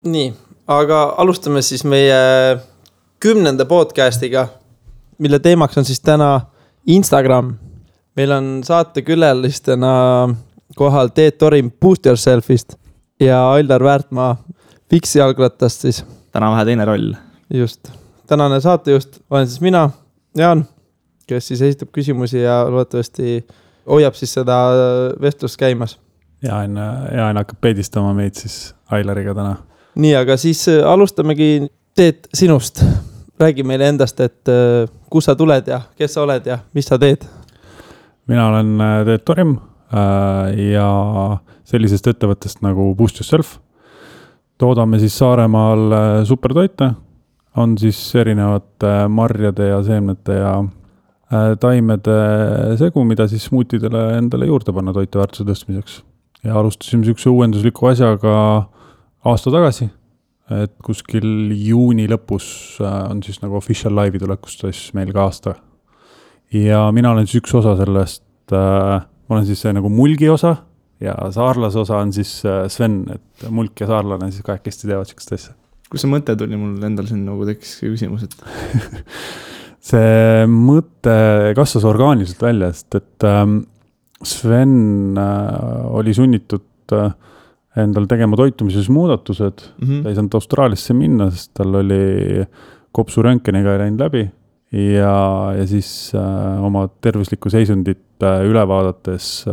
Nii, aga alustame siis meie 10. podcastiga, mille teemaks on siis täna Instagram. Meil on saatekülalistena kohal Teet Torim Boost Yourselfist ja Aildar Väärtmaa Fiksi jalgrattast siis. Täna vähe teine roll. Just. Tänane saatejuht olen siis mina, Jaan, kes siis esitab küsimusi ja loodetavasti hoiab siis seda vestlust käimas. Jaan hakkab peedistama meid siis Ailariga täna. Nii, aga siis alustamegi Teet sinust. Räägi meile endast, et kus sa tuled ja kes sa oled ja mis sa teed? Mina olen Teet Torim ja sellisest ettevõttest nagu Boost Yourself. Toodame siis Saaremaal supertoite. On siis erinevate marjade ja seemnete ja taimede segu, mida siis smootidele endale juurde panna toiteväärtuse tõstmiseks. Ja alustasime sihukese uuendusliku asjaga aasta tagasi, et kuskil juuni lõpus on siis nagu official live'i tulekust siis meil ka aasta. Ja mina olen siis üks osa sellest, ma olen siis see nagu mulgi osa ja saarlase osa on siis Sven, et mulk ja saarlane siis kahekesti teevad sihukest asja. Kus see mõte tuli mul endal siin nagu tekkis küsimus, et see mõte kasvas orgaaniliselt välja, sest et Sven oli sunnitud endal tegema toitumises muudatused. Ta ei saanud Austraaliasse minna, sest tal oli kopsu röntgeniga läinud läbi ja siis oma tervislikku seisundit üle vaadates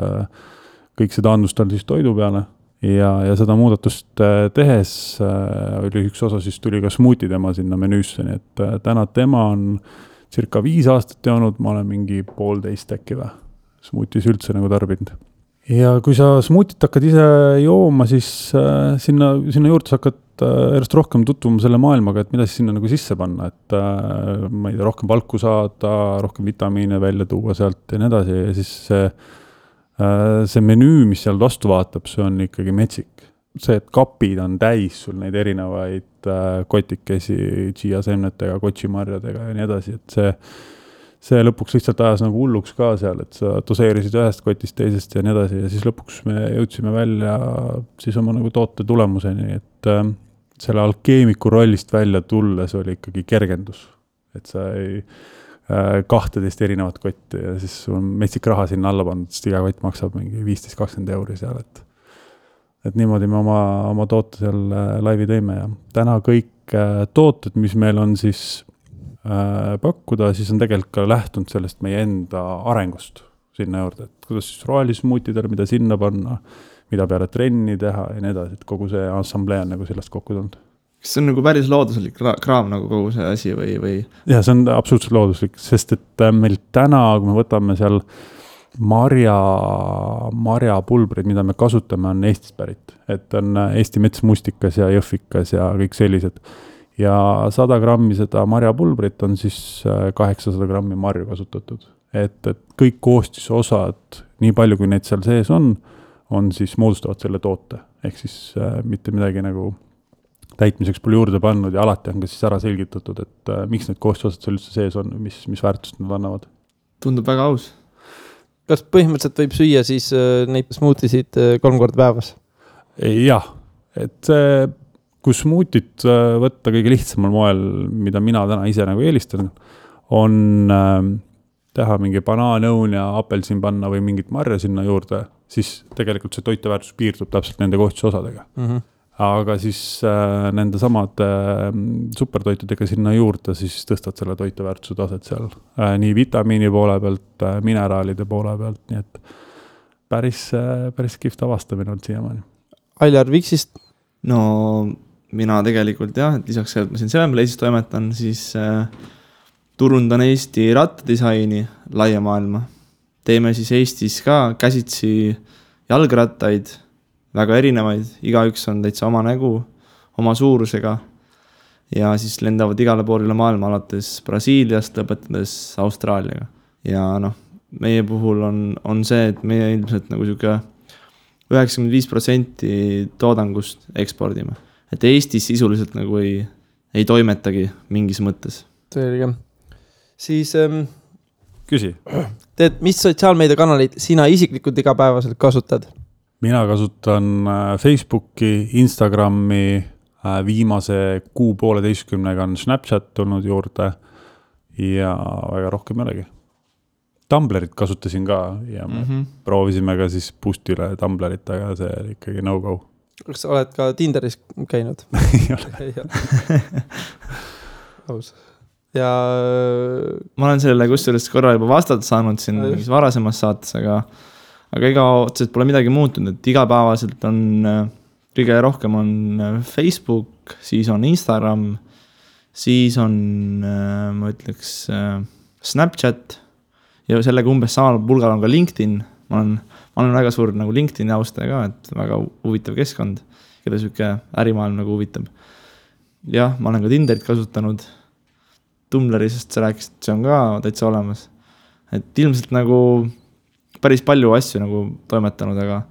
kõik seda andus tal siis toidu peale ja seda muudatust tehes oli üks osa, siis tuli ka smuuti tema sinna menüüsse, nii et täna tema on circa 5 aastat joonud, ma olen mingi 1,5 äkki või smuutis üldse nagu tarbinud. Ja kui sa smuutit hakkad ise jooma, siis sinna juurde sa hakkad järjest rohkem tutvuma selle maailmaga, et mida siis sinna nagu sisse panna, et ma ei tea, rohkem valku saada, rohkem vitamiine välja tuua sealt ja nii edasi. Ja siis see menüü, mis seal vastu vaatab, see on ikkagi metsik. See, et kapid on täis sul neid erinevaid kotikesi, chia seemnetega, kotsimarjadega ja nii edasi, et see lõpuks lihtsalt ajas nagu hulluks ka seal, et sa doseerisid ühest kotist teisest ja nii edasi ja siis lõpuks me jõudsime välja siis oma nagu toote tulemuseni, et selle alkeemiku rollist välja tulles oli ikkagi kergendus, et sa ei 12 erinevat kotti ja siis sul on metsik raha sinna alla pandud, sest iga kott maksab mingi 15-20 € seal, et niimoodi me oma toote seal laivi tõime ja täna kõik tooted, mis meil on siis pakkuda, siis on tegelikult ka lähtunud sellest meie enda arengust sinna juurde, et kuidas siis rohelismuutidele, mida sinna panna, mida peale trenni teha ja nii edasi, et kogu see assamblee on nagu sellest kokku tulnud. Kas see on nagu päris looduslik kraam nagu kogu see asi või? Ja see on absoluutselt looduslik, sest et meil täna, kui me võtame seal marjapulbrid, mida me kasutame, on Eestist pärit, et on Eesti metsmustikas ja jõhvikas ja kõik sellised. Ja 100 grammi seda marjapulbrit on siis 800 grammi marju kasutatud. Et kõik koostisosad, nii palju kui neid seal sees on siis moodustavad selle toote. Ehk siis mitte midagi nagu täitmiseks pole juurde pannud ja alati on ka siis ära selgitatud, et miks need koostisosad seal üldse sees on, mis väärtust nad annavad. Tundub väga aus. Kas põhimõtteliselt võib süüa siis neid smuutisid 3 korda päevas? Jah, et see kui smuutit võtta kõige lihtsamal moel, mida mina täna ise nagu eelistan, on teha mingi banaanõun ja apelsin panna või mingit marja sinna juurde, siis tegelikult see toiteväärtus piirdub täpselt nende koostisosadega. Aga siis nende samad supertoitudega sinna juurde, siis tõstad selle toiteväärtuse taset seal. Nii vitamiini poole pealt, mineraalide poole pealt, nii et päris kihvt avastamine on siiamaani. Ailjar Fiksist? No mina tegelikult jah, et lisaks sellelt ma siin Sevenplace'is toimetan, siis turundan Eesti rattadisaini laia maailma. Teeme siis Eestis ka käsitsi jalgrattaid, väga erinevaid, igaüks on täitsa oma nägu, oma suurusega ja siis lendavad igale poole maailma alates Brasiiliast lõpetades Austraaliaga. Ja meie puhul on see, et meie ilmselt nagu siuke 95% toodangust ekspordime. Et Eestis sisuliselt nagu ei toimetagi mingis mõttes. Selge. Siis küsi. Teed, mis sotsiaalmeediakanalid sina isiklikult igapäevaselt kasutad? Mina kasutan Facebooki, Instagrami, Viimase 6-1,5 on Snapchat tulnud juurde ja väga rohkem ei olegi. Tumblerit kasutasin ka ja proovisime ka siis Boostile Tumblerit, aga see oli ikkagi no-go. Kas sa oled ka Tinderis käinud? Ei ole. Aus. Ja ma olen sellele kusjuures korra juba vastata saanud siin mingis varasemas saates, aga ega otseselt pole midagi muutunud, et igapäevaselt on kõige rohkem on Facebook, siis on Instagram, siis on, ma ütleks, Snapchat ja sellega umbes samal pulgal on ka LinkedIn. Ma olen väga suur nagu LinkedIni austaja ka, et väga huvitav keskkond, keda süke ärimaailm nagu huvitab. Jah, ma olen ka Tinderit kasutanud, Tumblri, sest sa rääkisid, see on ka täitsa olemas. Et ilmselt nagu päris palju asju nagu toimetanud, aga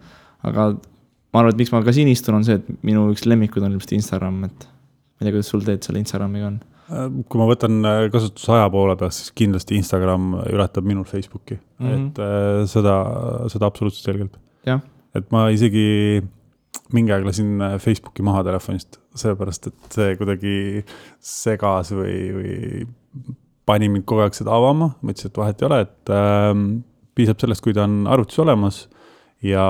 ma arvan, et miks ma ka siin istun, on see, et minu üks lemmikud on ilmselt Instagram, et ma ei tea, kuidas sul teed selle Instagramiga on. Kui ma võtan kasutusaja poole peast, siis kindlasti Instagram ületab minul Facebooki. Et seda absoluutselt selgelt. Ja. Et ma isegi mingi aeg lasin Facebooki maha telefonist, seepärast, et see kuidagi segas või pani mind kogu aeg seda avama. Ma ütlesin, et vahet ei ole, et piisab sellest, kui ta on arvutis olemas ja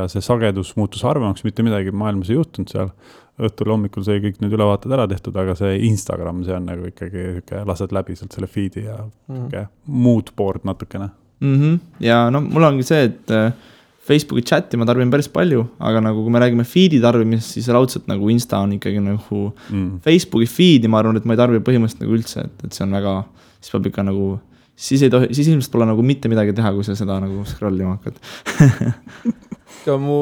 see sagedus muutus harvemaks, mitte midagi maailmas ei juhtunud seal. Õhtul hommikul sai kõik need ülevaated ära tehtud, aga see Instagram, see on nagu ikkagi lased läbi sealt selle feedi ja mood board natukene. Ja no mul ongi see, et Facebooki chati ma tarbin päris palju, aga nagu kui me räägime feedi tarbimisest, siis raudselt nagu Insta on ikkagi nagu Facebooki feedi, ma arvan, et ma ei tarbi põhimõtteliselt nagu üldse, et see on väga, siis peab ikka nagu, siis ilmselt pole nagu mitte midagi teha, kui sa seda nagu scrollima hakkad. Ka mu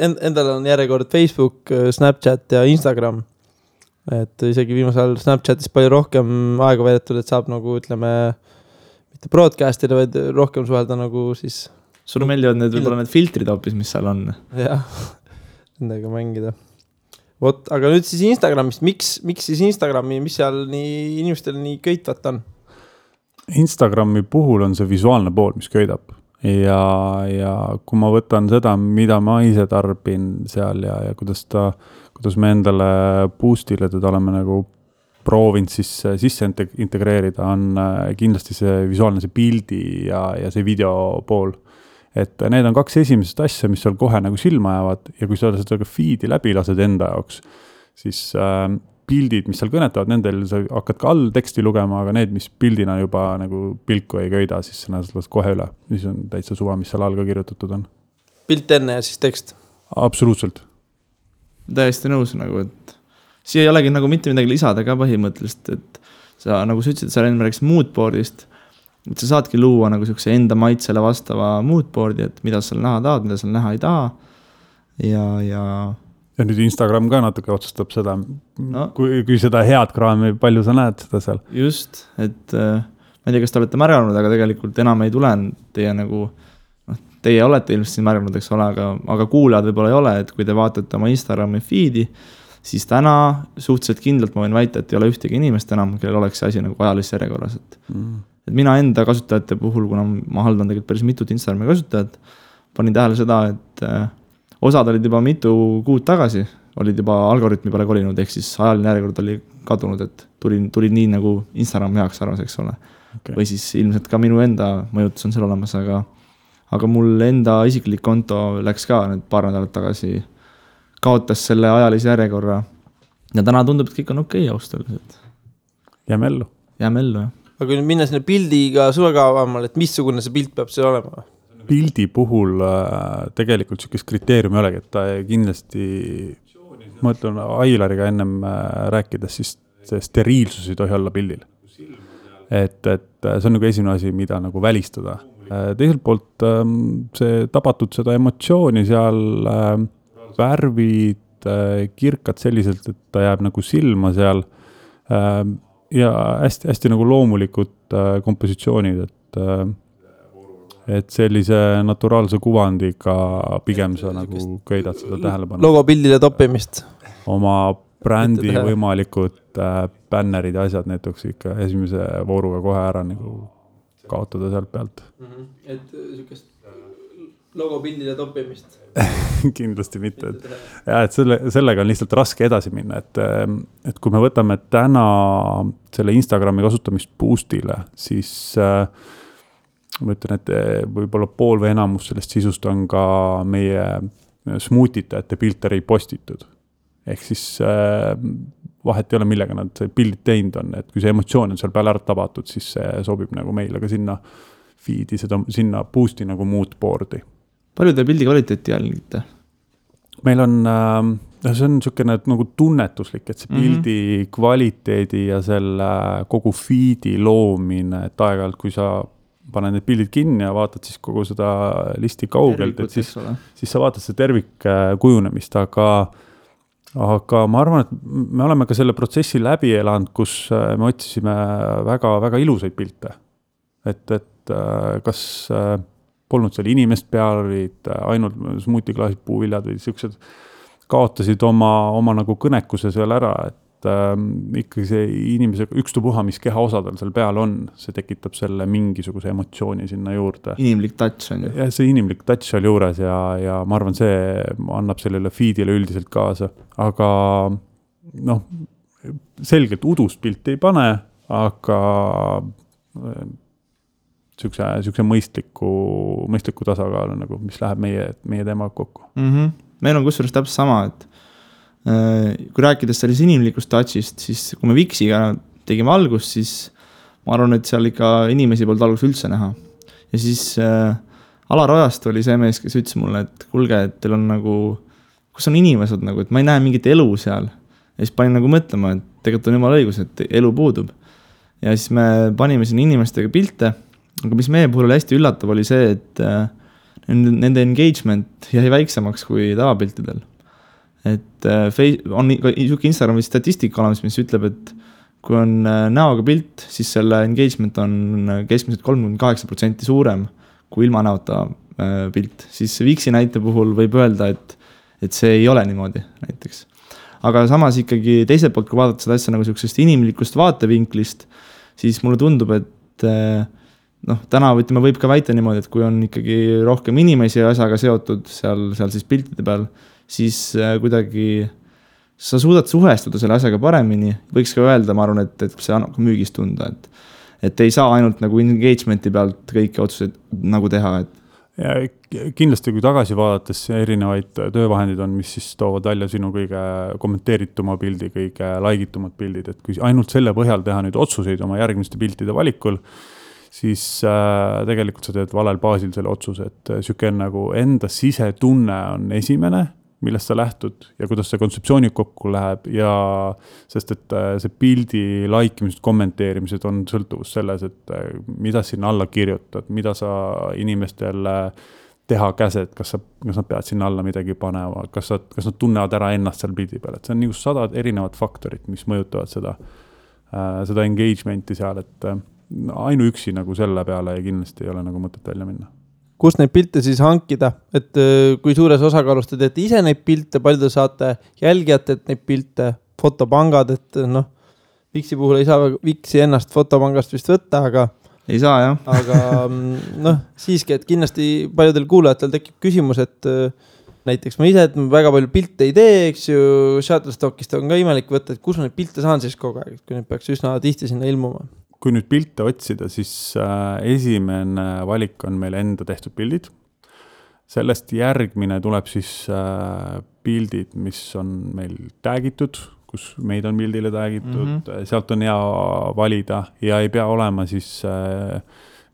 endal on järjekord Facebook, Snapchat ja Instagram. Et isegi viimasel Snapchatis palju rohkem aega veedetud, et saab nagu, ütleme, mitte broadcastida, vaid rohkem suhelda nagu siis... Sulle meeldivad võib-olla need filtrid hoopis, mis seal on. Jah, nendega mängida. Aga nüüd siis Instagramist. Miks siis Instagrami, mis seal nii inimestel nii köitvat on? Instagrami puhul on see visuaalne pool, mis köidab. Ja kui ma võtan seda, mida ma ise tarbin seal ja kuidas me endale Boostile teda oleme nagu proovinud sisse integreerida, on kindlasti see visuaalne, see pildi ja see video pool. Et need on kaks esimesest asja, mis seal kohe nagu silma jäävad ja kui sa seda feedi läbi lased enda jaoks, siis pildid, mis seal kõnetavad, nendel sa hakkad ka all teksti lugema, aga need, mis pildina juba nagu pilku ei köida, siis sa las kohe üle. Mis on täitsa suva, mis seal all ka kirjutatud on. Pilt enne ja siis tekst? Absoluutselt. Täiesti nõus, nagu, et siia ei olegi nagu mitte midagi lisada ka põhimõtteliselt, et sa nagu sa ütlesid, sa enne rääkisid moodboardist, et sa saadki luua nagu sellise enda maitsele vastava moodboardi, et mida sa näha tahad, mida sa näha ei taha ja nüüd Instagram ka natuke otsustab seda, kui seda head kraami, palju sa näed seda seal. Just, et ma ei tea, kas te olete märganud, aga tegelikult enam ei tule teie nagu, teie olete ilmselt siin märganud, eks ole, aga kuulajad võib-olla ei ole, et kui te vaatate oma Instagrami feedi, siis täna suhteliselt kindlalt ma võin väita, et ei ole ühtegi inimest enam, kellel oleks see asi nagu ajalises järjekorras. Et mina enda kasutajate puhul, kuna ma haldan tegelikult päris mitut Instagrami kasutajat, panin tähele seda, et osad olid juba mitu kuud tagasi, olid juba algoritmi peale kolinud, ehk siis ajaline järjekord oli kadunud, et tuli nii nagu Instagram heaks arvas, eks ole. Okay. Või siis ilmselt ka minu enda mõjutus on seal olemas, aga mul enda isiklik konto läks ka need paar nädalat tagasi, kaotas selle ajalise järjekorra ja täna tundub, et kõik on okei austuslikult. Jääme ellu, jah. Aga kui nüüd minna sinna pildiga sulle ka avamal, et missugune see pilt peab seal olema? Pildi puhul tegelikult sellist kriteeriumi ei olegi, et ta kindlasti, ma ütlen Ailariga ennem rääkides, siis see steriilsus ei tohi olla pildil. Et see on nagu esimene asi, mida nagu välistada. Teiselt poolt see tabatud seda emotsiooni seal, värvid, kirkad selliselt, et ta jääb nagu silma seal ja hästi nagu loomulikud kompositsioonid, et sellise naturaalse kuvandiga pigem sa nagu köidad seda tähelepanu. Logopildile toppimist. Oma brändi võimalikud bännerid ja asjad näiteks ikka esimese vooruga kohe ära nagu kaotada sealt pealt. Et sükest logopildile toppimist. Kindlasti mitte. Ja, et sellega on lihtsalt raske edasi minna, et kui me võtame täna selle Instagrami kasutamist boostile, siis ma ütlen, et võib-olla pool või enamus sellest sisust on ka meie smuutitajate pilte repostitud. Ehk siis vahet ei ole, millega nad pildid teinud on, et kui see emotsioon on seal peal ära tabatud, siis see sobib nagu meile ka sinna feed'i, sinna boost'i nagu mood board'i. Palju te pildi kvaliteeti jälgite? Meil on, see on niisugune nagu tunnetuslik, et see pildi kvaliteedi ja selle kogu feed'i loomine, et aeg-ajalt, kui sa paned need pildid kinni ja vaatad siis kogu seda listi kaugelt, et siis sa vaatad seda tervik kujunemist, aga ma arvan, et me oleme ka selle protsessi läbi elanud, kus me otsisime väga, väga ilusaid pilte. Et kas polnud seal inimest peal, olid ainult smuutiklaasid, puuviljad või siuksed kaotasid oma nagu kõnekuse seal ära, et ikkagi see inimese ükstupuha, mis kehaosadel seal peal on, see tekitab selle mingisuguse emotsiooni sinna juurde. Inimlik touch on ju. Ja see inimlik touch seal juures ja ma arvan, see annab sellele feedile üldiselt kaasa, aga selgelt udust pilti ei pane, aga siukse mõistliku tasakaalu, nagu, mis läheb meie teemaga kokku. Meil on kusjuures täpselt sama, et kui rääkides selles inimlikust touchist, siis kui me Viksiga tegime algust, siis ma arvan, et seal ikka inimesi polnud algust üldse näha. Ja siis Alar Ojast oli see mees, kes ütles mulle, et kuulge, et teil on nagu, kus on inimesed nagu, et ma ei näe mingit elu seal. Ja siis panin nagu mõtlema, et tegelikult on jumala õigus, et elu puudub. Ja siis me panime siin inimestega pilte, aga mis meie puhul hästi üllatav oli see, et nende engagement jäi väiksemaks kui tavapiltidel. Et on Instagrami statistika olemas, mis ütleb, et kui on näoga pilt, siis selle engagement on keskmiselt 38% suurem kui ilma näota pilt. Siis Viksi näite puhul võib öelda, et see ei ole niimoodi näiteks. Aga samas ikkagi teiselt poolt, kui vaadata seda asja nagu sellisest inimlikust vaatevinklist, siis mulle tundub, et täna võib ka väita niimoodi, et kui on ikkagi rohkem inimesi ja asjaga seotud seal siis piltide peal, siis kuidagi sa suudad suhestuda selle asjaga paremini. Võiks ka öelda, ma arvan, et see annab ka müügist tunda, et ei saa ainult nagu engagementi pealt kõiki otsuseid nagu teha. Ja kindlasti, kui tagasi vaadates erinevaid töövahendid on, mis siis toovad välja sinu kõige kommenteerituma pildi, kõige laigitumad pildid, et kui ainult selle põhjal teha nüüd otsuseid oma järgmiste piltide valikul, siis tegelikult sa teed valel baasil selle otsuse, et siuke nagu enda sisetunne on esimene, millest sa lähtud ja kuidas see kontseptsiooni kokku läheb ja sest, et see pildi laikimised, kommenteerimised on sõltuvus selles, et mida sinna alla kirjutad, mida sa inimestele teha käsed, kas nad peavad sinna alla midagi panema, kas nad tunnevad ära ennast seal pildi peal, et see on nagu 100 erinevat faktorit, mis mõjutavad seda engagementi seal, et ainuüksi nagu selle peale ja kindlasti ei ole nagu mõtet välja minna. Kus neid pilte siis hankida, et kui suures osakaalus te teete ise neid pilte, palju te saate jälgijate neid pilte, fotopangad, et Viksi puhul ei saa Viksi ennast fotopangast vist võtta, aga ei saa, jah. Aga siiski, et kindlasti paljudel kuulajatel tekib küsimus, et näiteks ma ise, et ma väga palju pilte ei tee, eks ju, Shutterstockist on ka imelik võtta, et kus ma neid pilte saan siis kogu aeg, kui neid peaks üsna tihti sinna ilmuma. Kui nüüd pilte otsida, siis esimene valik on meil enda tehtud pildid. Sellest järgmine tuleb siis pildid, mis on meil täägitud, kus meid on pildile täägitud. Sealt on hea valida ja ei pea olema siis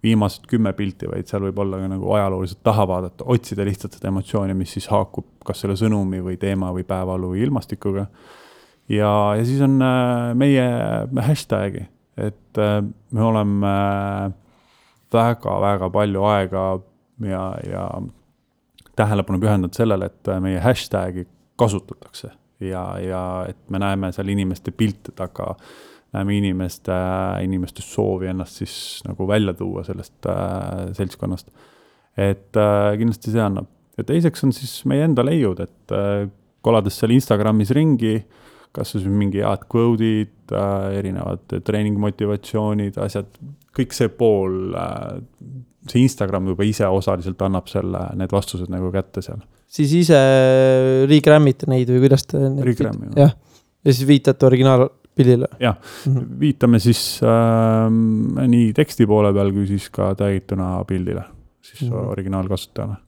viimased 10 pilti, vaid seal võib olla ka nagu ajalooliselt taha vaadata, otsida lihtsalt seda emotsiooni, mis siis haakub kas selle sõnumi või teema või päevalu või ilmastikuga. Ja siis on meie hashtagi. Et me oleme väga palju aega ja tähelepanu pühendanud sellele, et meie hashtagi kasutatakse ja et me näeme seal inimeste pilte taga, näeme inimeste soovi ennast siis nagu välja tuua sellest seltskonnast. Et kindlasti see annab. Ja teiseks on siis meie enda leiud, et kolades seal Instagramis ringi, kas siis mingi head quote'id, erinevad treeningmotivatsioonid, asjad, kõik see pool, see Instagram juba ise osaliselt annab need vastused nagu kätte seal. Siis ise regrammite neid või kuidas te... Regrammi. Jah. Ja siis viitate originaalpildile. Jah, viitame siis nii teksti poole peal, kui siis ka täituna pildile, siis originaalkasutajale.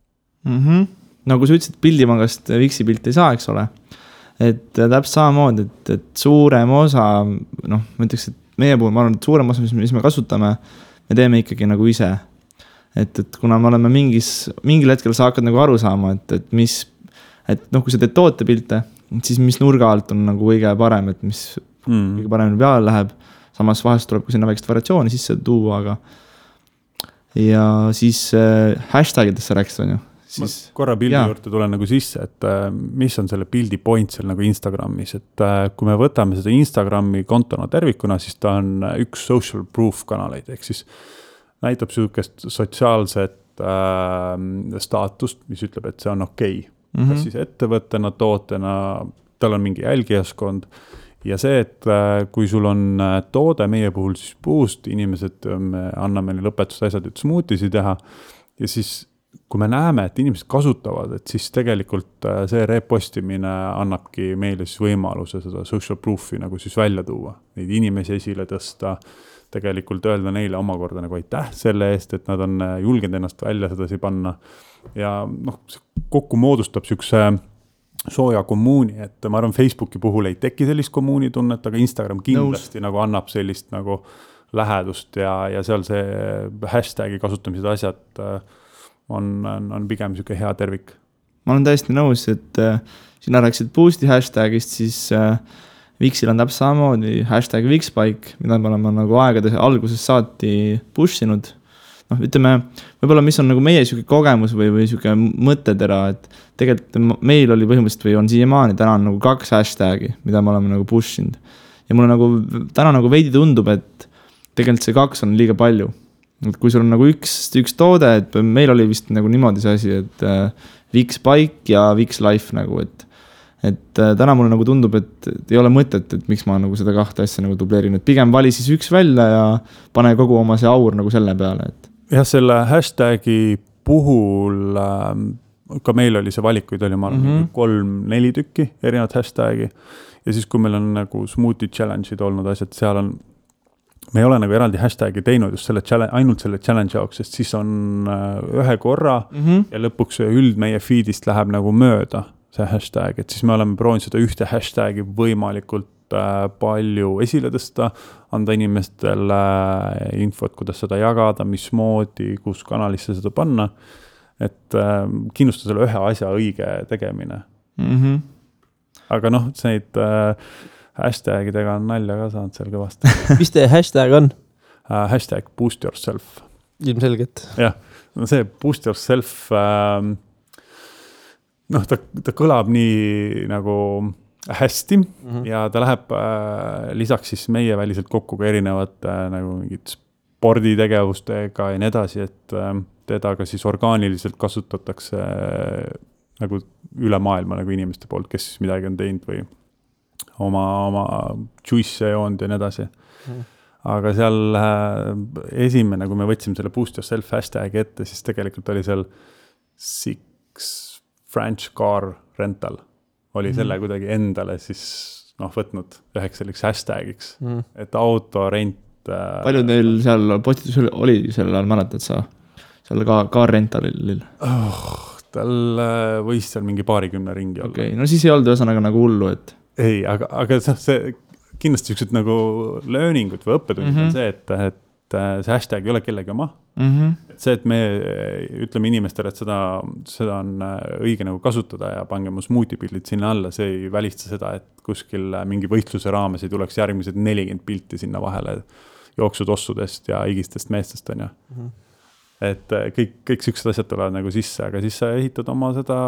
Nagu sa ütlesid, pildimangast Vixi pilt ei saa, eks ole. Et täpselt samamoodi, et suurem osa, noh, ma ütleks, et meie puhul, ma arvan, et suurem osa, mis me kasutame, me teeme ikkagi nagu ise. Et kuna me oleme mingil hetkel sa hakkad nagu aru saama, et noh, kui sa teed tootepilte, siis mis nurga alt on nagu kõige parem, et mis kõige paremini peale läheb. Samas vahest tuleb ka sinna väikest variatsiooni sisse tuua, aga ja siis hashtagidesse rääksid, on ju. Siis, korra pildi juurde tulen nagu sisse, et mis on selle pildi point seal nagu Instagramis, et kui me võtame seda Instagrami kontona tervikuna, siis ta on üks social proof kanaleid, ehk siis näitab sihukest sotsiaalset staatust, mis ütleb, et see on okei. Kas siis ettevõttena, tootena, tal on mingi jälgijaskond ja see, et kui sul on toode meie puhul siis puust, inimesed anname lõpetust asjad, et smoothiesi teha ja siis kui me näeme, et inimesed kasutavad, et siis tegelikult see repostimine annabki meile siis võimaluse seda social proofi nagu siis välja tuua, neid inimesi esile tõsta, tegelikult öelda neile omakorda nagu aitäh selle eest, et nad on julgenud ennast välja sedasi panna ja noh, kokku moodustab sükse sooja kommuuni, et ma arvan, Facebooki puhul ei teki sellist kommuuni tunnet, aga Instagram kindlasti nagu annab sellist nagu lähedust ja seal see hashtagi kasutamised asjad on pigem siuke hea tervik. Ma olen täiesti nõus, et sina rääksid Boost'i hashtagist, siis Vixil on täpselt samamoodi hashtag Vixbike, mida me oleme nagu aegade alguses saati push-inud. Noh, ütleme, võib-olla mis on nagu meie siuke kogemus või siuke mõttetera, et tegelikult meil oli põhimõtteliselt või on siiamaani täna nagu 2 hashtagi, mida me oleme nagu push-inud. Ja mulle nagu täna nagu veidi tundub, et tegelikult see 2 on liiga palju. Et kui sul on nagu üks toode, et meil oli vist nagu niimoodi see asi, et Vixbike ja Vixlife nagu, et täna mulle nagu tundub, et ei ole mõtet, et miks ma nagu seda 2 asja nagu dubleerin, et pigem vali siis üks välja ja pane kogu oma see aur nagu selle peale, et jah, selle hashtagi puhul ka meil oli see valikuid oli 3-4 tükki erinevat hashtagi ja siis kui meil on nagu smoothie challenge'id olnud asjad, seal on me ei ole nagu eraldi hashtagi teinud just ainult selle challenge jaoks, sest siis on ühe korra ja lõpuks meie feedist läheb nagu mööda see hashtag, et siis me oleme proovinud seda ühte hashtagi võimalikult palju esile tõsta, anda inimestele infot, kuidas seda jagada, mismoodi, kus kanalisse seda panna, et kindlustada selle ühe asja õige tegemine. Aga noh, neid hashtagidega on nalja ka saanud seal kõvasti. Mis teie hashtag on? Hashtag boost yourself. Ilmselgelt. Jah, no see boost yourself, noh, ta kõlab nii nagu hästi ja ta läheb lisaks siis meie väliselt kokku ka erinevate nagu mingid sporditegevustega ja nii edasi, et teda ka siis orgaaniliselt kasutatakse nagu üle maailma nagu inimeste poolt, kes siis midagi on teinud või oma juice joonud ja nii edasi. Aga seal esimene, kui me võtsime selle boost yourself hashtag ette, siis tegelikult oli seal 6 French car rental. Oli selle kuidagi endale siis võtnud üheks selliks hashtagiks, et autorent. Palju teil seal postitus oli selle ajal, mäletad sa? Seal car rentalil? Tal võis seal mingi 20 ringi olla. Okay. No siis ei olnud ühesõnaga nagu hullu, et ei, aga see kindlasti üksid nagu learningud või õppetund on see, et see hashtag ei ole kellegi oma. Et see, et me ütleme inimestele, et seda on õige nagu kasutada ja pange mu smoothie-pildid sinna alla, see ei välista seda, et kuskil mingi võistluse raames ei tuleks järgmised 40 pilti sinna vahele jooksutossudest ja igistest meestest on ju. Et kõik siuksed asjad tulevad nagu sisse, aga siis sa ehitad oma seda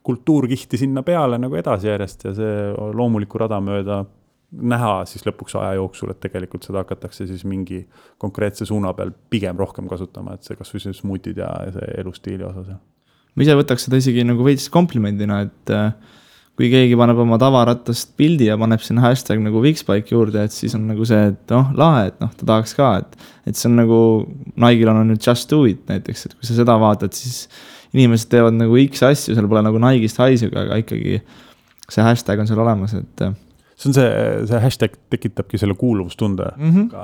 kultuurkihti sinna peale nagu edasi järjest ja see loomuliku rada mööda näha siis lõpuks aja jooksul, et tegelikult seda hakatakse siis mingi konkreetse suuna peal pigem rohkem kasutama, et see kas või see smoothied ja see elustiili osas. Ma ise võtaks seda isegi nagu veits komplimendina, et kui keegi paneb oma tavarattast pildi ja paneb sinna hashtag nagu Wixbike juurde, et siis on nagu see, et lahe, et ta tahaks ka, et see on nagu, Nike'l on nüüd Just Do It näiteks, et kui sa seda vaatad, siis inimesed teevad nagu X asju, seal pole nagu Nike'ist haisuga, aga ikkagi see hashtag on seal olemas, et see on see hashtag tekitabki selle kuuluvustunde,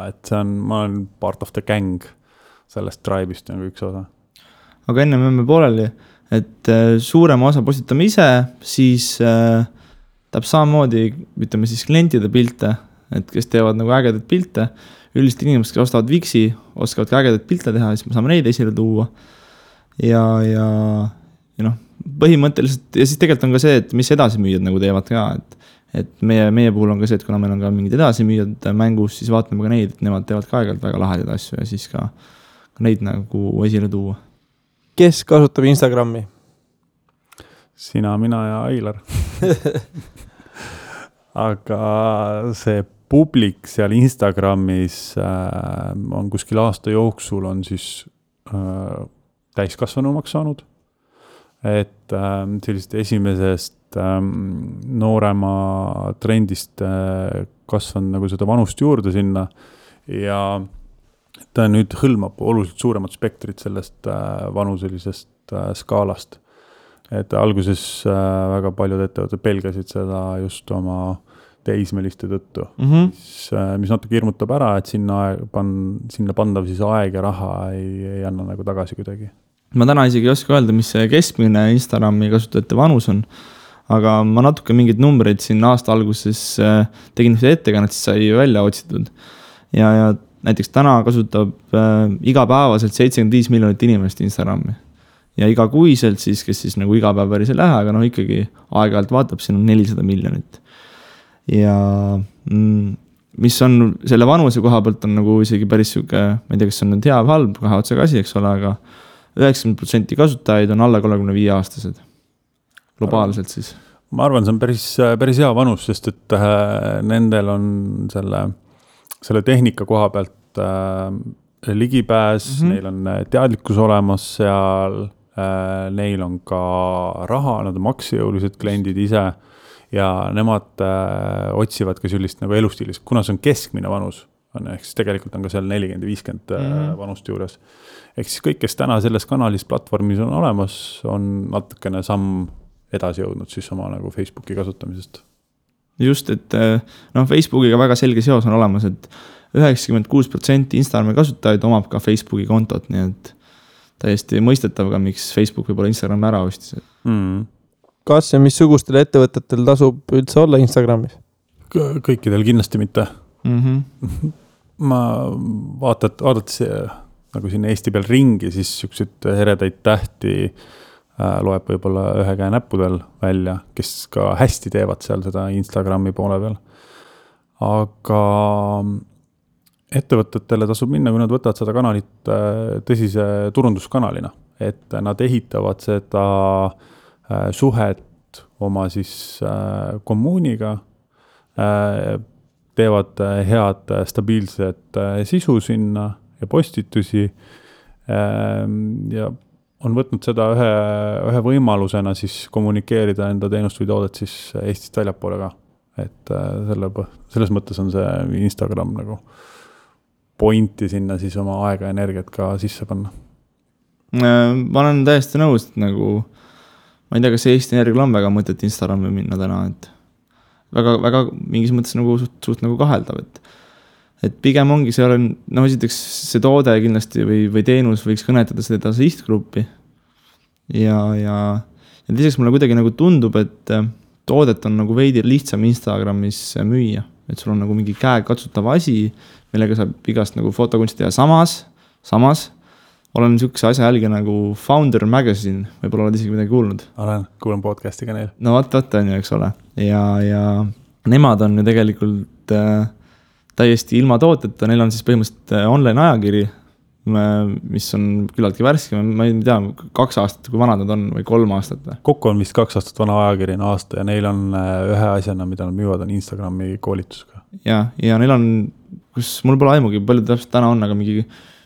et see on, ma olen part of the gang sellest tribe'ist nagu üks osa. Aga enne me pooleli, et suurema osa postitame ise, siis tahab samamoodi, ütleme siis klientide pilte, et kes teevad nagu ägedaid pilte, üldiselt inimesed, kes ostavad Wixi, oskavad ka ägedaid pilte teha, siis me saame neid esile tuua. Ja põhimõtteliselt, ja siis tegelikult on ka see, et mis edasimüüjad nagu teevad ka, et meie puhul on ka see, et kuna meil on ka mingid edasimüüjad mängus, siis vaatame ka neid, et nemad teevad ka aegalt väga lahedaid asju ja siis ka neid nagu esile tuua. Kes kasutab Instagrami? Sina, mina ja Ailar. Aga see publik seal Instagramis on kuskil aasta jooksul on siis täiskasvanumaks saanud. Et sellist esimesest noorema trendist kasvanud nagu seda vanust juurde sinna ja ta nüüd hõlmab oluliselt suuremat spektrit sellest vanuselisest skaalast. Et alguses väga paljud ettevõtted pelgasid seda just oma teismeliste tõttu, mis natuke hirmutab ära, et sinna pandav siis aeg ja raha ei anna nagu tagasi kuidagi. Ma täna isegi ei oska öelda, mis see keskmine Instagrami kasutajate vanus on, aga ma natuke mingid numbreid siin aasta alguses tegin ettekannet, siis sai välja otsitud. Ja näiteks täna kasutab igapäevaselt 75 miljonit inimest Instagrami. Ja igakuiselt siis, kes siis nagu iga päev päris ei lähe, aga ikkagi aeg-ajalt vaatab, siin on 400 miljonit. Ja mis on selle vanuse koha pealt on nagu isegi päris süke, ma ei tea, kas on nüüd hea või halb, kahe otsaga asi, eks ole, aga 90% kasutajaid on alla 35 aastased. Globaalselt siis. Ma arvan, see on päris hea vanus, sest et nendel on selle tehnika koha pealt ligipääs, neil on teadlikkus olemas seal, neil on ka raha, nad on maksejõulised kliendid ise ja nemad otsivad ka sellist nagu elustiilis, kuna see on keskmine vanus, ehk siis tegelikult on ka seal 40-50 vanust juures. Ehk siis kõik, kes täna selles kanalis platvormis on olemas, on natukene samm edasi jõudnud siis oma nagu Facebooki kasutamisest. Just, et Facebookiga väga selge seos on olemas, et 96% Instagrami kasutajaid omab ka Facebooki kontot, nii et täiesti mõistetav ka, miks Facebook võib-olla Instagrami ära ostis. Kas ja missugustel ettevõtetel tasub üldse olla Instagramis? Kõikidel kindlasti mitte. Ma vaadates nagu siin Eesti peal ringi, siis siukseid heredaid tähti loeb võib-olla ühe käe näppudel välja, kes ka hästi teevad seal seda Instagrami poole peal. Aga ettevõtetele tasub minna, kui nad võtavad seda kanalit tõsise turunduskanalina, et nad ehitavad seda suhet oma siis kommuuniga, teevad head stabiilset sisu sinna ja postitusi ja on võtnud seda ühe võimalusena siis kommunikeerida enda teenust või toodet siis Eestist väljapoole ka. Et selles mõttes on see Instagram nagu pointi sinna siis oma aega ja energiat ka sisse panna. Ma olen täiesti nõus, et nagu ma ei tea, kas Eesti Energial on väga mõtet Instagrami minna täna, et väga mingis mõttes nagu suht nagu kaheldav, et pigem ongi see olen, esiteks see toode kindlasti või teenus võiks kõnetada seda sihtgruppi ja lisaks mulle kuidagi nagu tundub, et toodet on nagu veidi lihtsam Instagramis müüa, et sul on nagu mingi käekatsutav asi, millega saab igast nagu fotokunsti teha samas olen niisuguse asja jälge nagu Founder Magazine, võib-olla oled isegi midagi kuulnud. Kuulen podcasti ka neil. No vaat on ju, eks ole. Ja nemad on ju tegelikult täiesti ilma tooteta, neil on siis põhimõtteliselt online ajakiri, mis on küllaltki värske, ma ei tea, 2 aastat, kui vanad nad on, või 3 aastat. Kokku on vist 2 aastat vana ajakiri aasta ja neil on ühe asjana, mida nad müüvad, on Instagrami koolitusega. Ja neil on, kus mul pole aimugi, palju täpselt täna on, aga mingi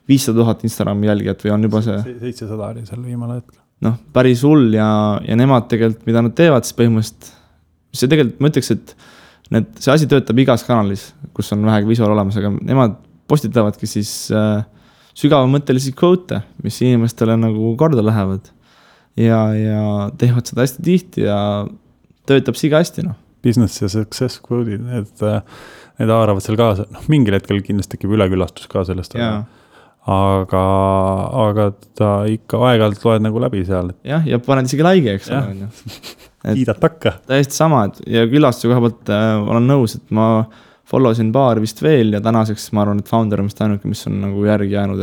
500 000 Instagrami jälgijat või on juba see 700 oli seal viimane hetk. Päris hull ja nemad tegelikult, mida nad teevad, siis põhimõtteliselt see tegelikult, ma ütleks, et see asi töötab igas kanalis, kus on vähegi visuaal olemas, aga nemad postitavadki siis sügavamõttelisi quote, mis inimestele nagu korda lähevad ja teevad seda hästi tihti ja töötab siga hästi, noh. Business ja success quote'id, need haaravad seal kaasa, mingil hetkel kindlasti tekib ülekülastus ka sellest, aga ta ikka aeg-ajalt loed nagu läbi seal. Jah, ja paned isegi laige, eks ole. Kiidad takka. Täiesti sama, ja külastuse koha poolt olen nõus, et ma followsin paar vist veel ja tänaseks ma arvan, et Founder on vist ainuke, mis on nagu järgi jäänud,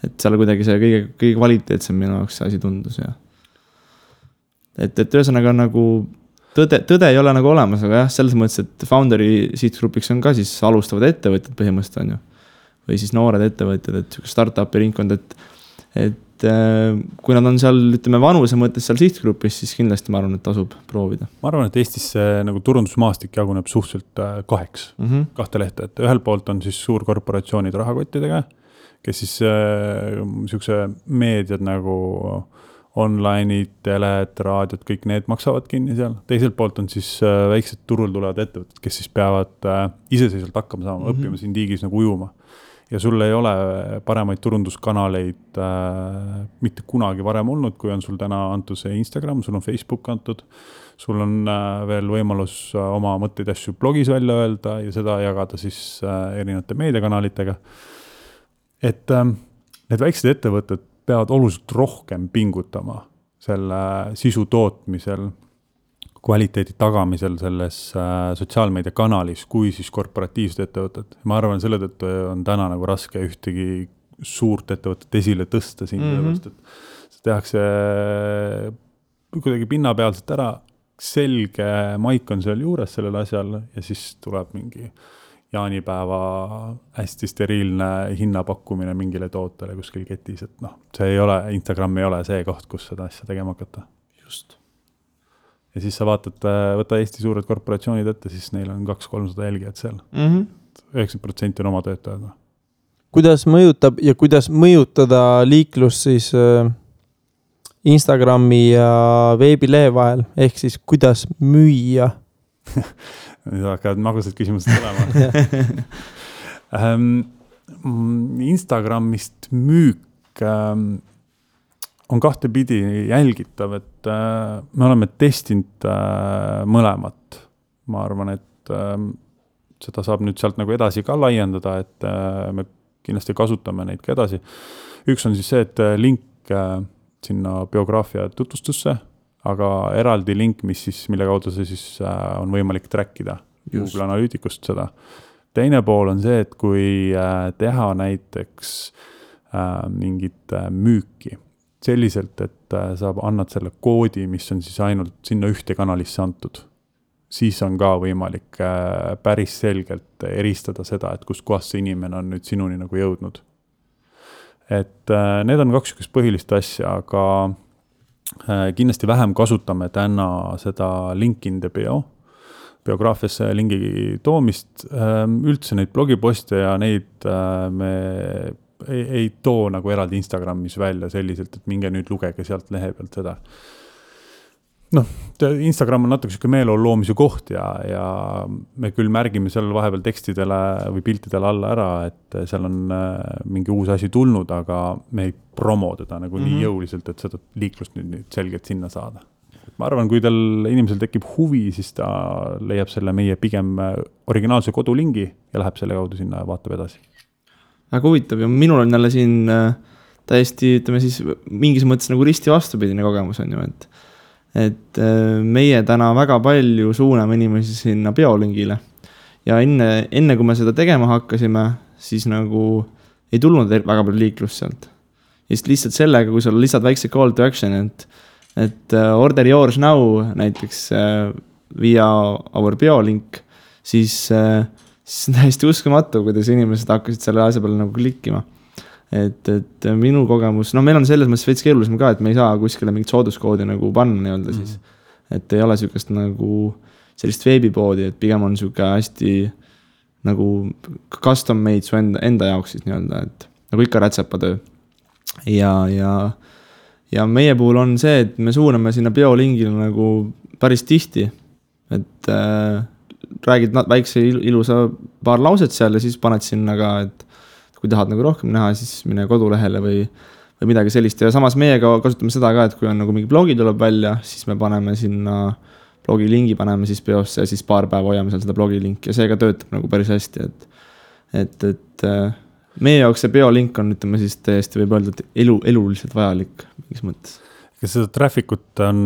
et seal kuidagi see kõige kvaliteetsem minu jaoks see asi tundus ja et ühesõnaga nagu tõde ei ole nagu olemas, aga jah, selles mõttes, et Founderi sihtgrupiks on ka siis alustavad ettevõtjad põhimõtteliselt on ju. Või siis noored ettevõtjad, et startupi ringkond, et kui nad on seal, ütleme, vanuse mõttes seal sihtgrupis, siis kindlasti ma arvan, et tasub proovida. Ma arvan, et Eestis see nagu turundusmaastik jaguneb suhteliselt kaheks, kahte lehte, et ühel poolt on siis suurkorporatsioonid rahakottidega, kes siis niisuguse meediad nagu online'id, teled, raadiod, kõik need maksavad kinni seal. Teiselt poolt on siis väiksed turul tulevad ettevõtted, kes siis peavad iseseisvalt hakkama saama, õppima siin tiigis nagu ujuma. Ja sul ei ole paremaid turunduskanaleid mitte kunagi varem olnud, kui on sul täna antud see Instagram, sul on Facebook antud, sul on veel võimalus oma mõtteid asju blogis välja öelda ja seda jagada siis erinevate meediakanalitega. Et need väiksed ettevõtted peavad oluliselt rohkem pingutama selle sisu tootmisel, kvaliteedi tagamisel selles sotsiaalmeedia kanalis, kui siis korporatiivsed ettevõtted. Ma arvan, selle tõttu on täna nagu raske ühtegi suurt ettevõtet esile tõsta siin, et see tehakse kuidagi pinnapealselt ära, selge maik on seal juures sellel asjal ja siis tuleb mingi jaanipäeva hästi steriilne hinnapakkumine mingile tootele kuskil ketis, et see ei ole, Instagram ei ole see koht, kus seda asja tegema hakata. Just. Ja siis sa vaatad, võta Eesti suured korporatsioonid ette, siis neil on 200-300 jälgijad seal. 90% on oma töötajad. Kuidas mõjutab ja kuidas mõjutada liiklus siis Instagrami ja veebilehe vahel, ehk siis kuidas müüa? Nüüd hakkavad magusad küsimused olema. Instagramist müük on kahtepidi jälgitav, et me oleme testinud mõlemat. Ma arvan, et seda saab nüüd sealt nagu edasi ka laiendada, et me kindlasti kasutame neid ka edasi. Üks on siis see, et link sinna biograafia tutvustusse, aga eraldi link, mille kaudu see siis on võimalik trackida Google Analyticust seda. Teine pool on see, et kui teha näiteks mingit müüki selliselt, et sa annad selle koodi, mis on siis ainult sinna ühte kanalisse antud, siis on ka võimalik päris selgelt eristada seda, et kust kohast see inimene on nüüd sinuni nagu jõudnud. Et need on kaks põhilist asja, aga kindlasti vähem kasutame täna seda link in the biograafiasse lingi toomist. Üldse neid blogiposte ja neid me ei too nagu eraldi Instagramis välja selliselt, et minge nüüd lugege sealt lehe pealt seda. Instagram on natuke meeleolu loomise koht ja me küll märgime seal vahepeal tekstidele või piltidele alla ära, et seal on mingi uus asi tulnud, aga me ei promo teda nagu nii jõuliselt, et seda liiklust nüüd selgelt sinna saada. Ma arvan, kui inimesel tekib huvi, siis ta leiab selle meie pigem originaalse kodulingi ja läheb selle kaudu sinna ja vaatab edasi. Väga huvitav ja minul on jälle siin täiesti, ütleme siis, mingis mõttes nagu risti vastupidine kogemus on ju, et meie täna väga palju suuname inimesi sinna biolingile ja enne kui me seda tegema hakkasime, siis nagu ei tulnud väga palju liiklust sealt. Ja lihtsalt sellega, kui sa lisad väikse call to action, et order yours now näiteks via our biolink, siis on täiesti uskumatu, kuidas inimesed hakkasid selle asja peale nagu klikkima. Et minu kogemus, meil on selles mõttes veits keerulisem ka, et me ei saa kuskile mingit sooduskoodi nagu panna nii-öelda siis. Et ei ole sükest nagu sellist veebipoodi, et pigem on süke hästi nagu custom made su enda jaoks siis nii-öelda, et nagu ikka rätsepatöö. Ja meie puhul on see, et me suuname sinna biolingile nagu päris tihti, et räägid väikse ilusa paar lauset seal ja siis paned sinna ka, et kui tahad nagu rohkem näha, siis mine kodulehele või midagi sellist ja samas meiega kasutame seda ka, et kui on nagu mingi blogi tuleb välja, siis me paneme sinna blogi lingi, paneme siis peosse ja siis paar päeva hoiame seal seda blogi linki ja see ka töötab nagu päris hästi, et meie jaoks see biolink on, ütleme siis täiesti võib öelda, et eluliselt vajalik mingis mõttes. Kas seda traffic'ut on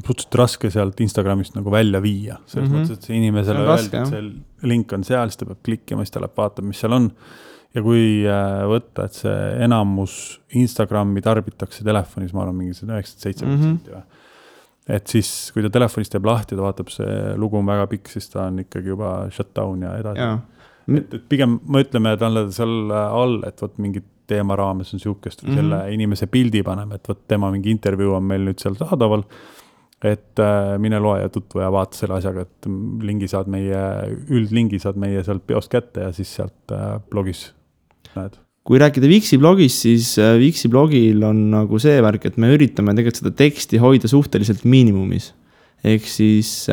suhteliselt raske sealt Instagramist nagu välja viia? Selles mõttes, et see inimesele öeldi, et see link on seal, siis ta peab klikkima, siis ta läheb vaatama, mis seal on. Ja kui võtta, et see enamus Instagrami tarbitakse telefonis, ma arvan, mingi 97%. Et siis, kui ta telefonist teeb lahti, ta vaatab, see lugu on väga pikk, siis ta on ikkagi juba shutdown ja edasi. Et pigem me ütleme, et on seal all, et võt mingit teema raames on siukest või selle inimese pildi paneme, et võt tema mingi intervjuu on meil nüüd seal saadaval, et mine loe ja tutvu ja vaata selle asjaga, et üldlingi saad meie sealt peost kätte ja siis sealt blogis näed. Kui rääkida Vixi blogist, siis Vixi blogil on nagu see värk, et me üritame tegelikult seda teksti hoida suhteliselt miinimumis. Ehk siis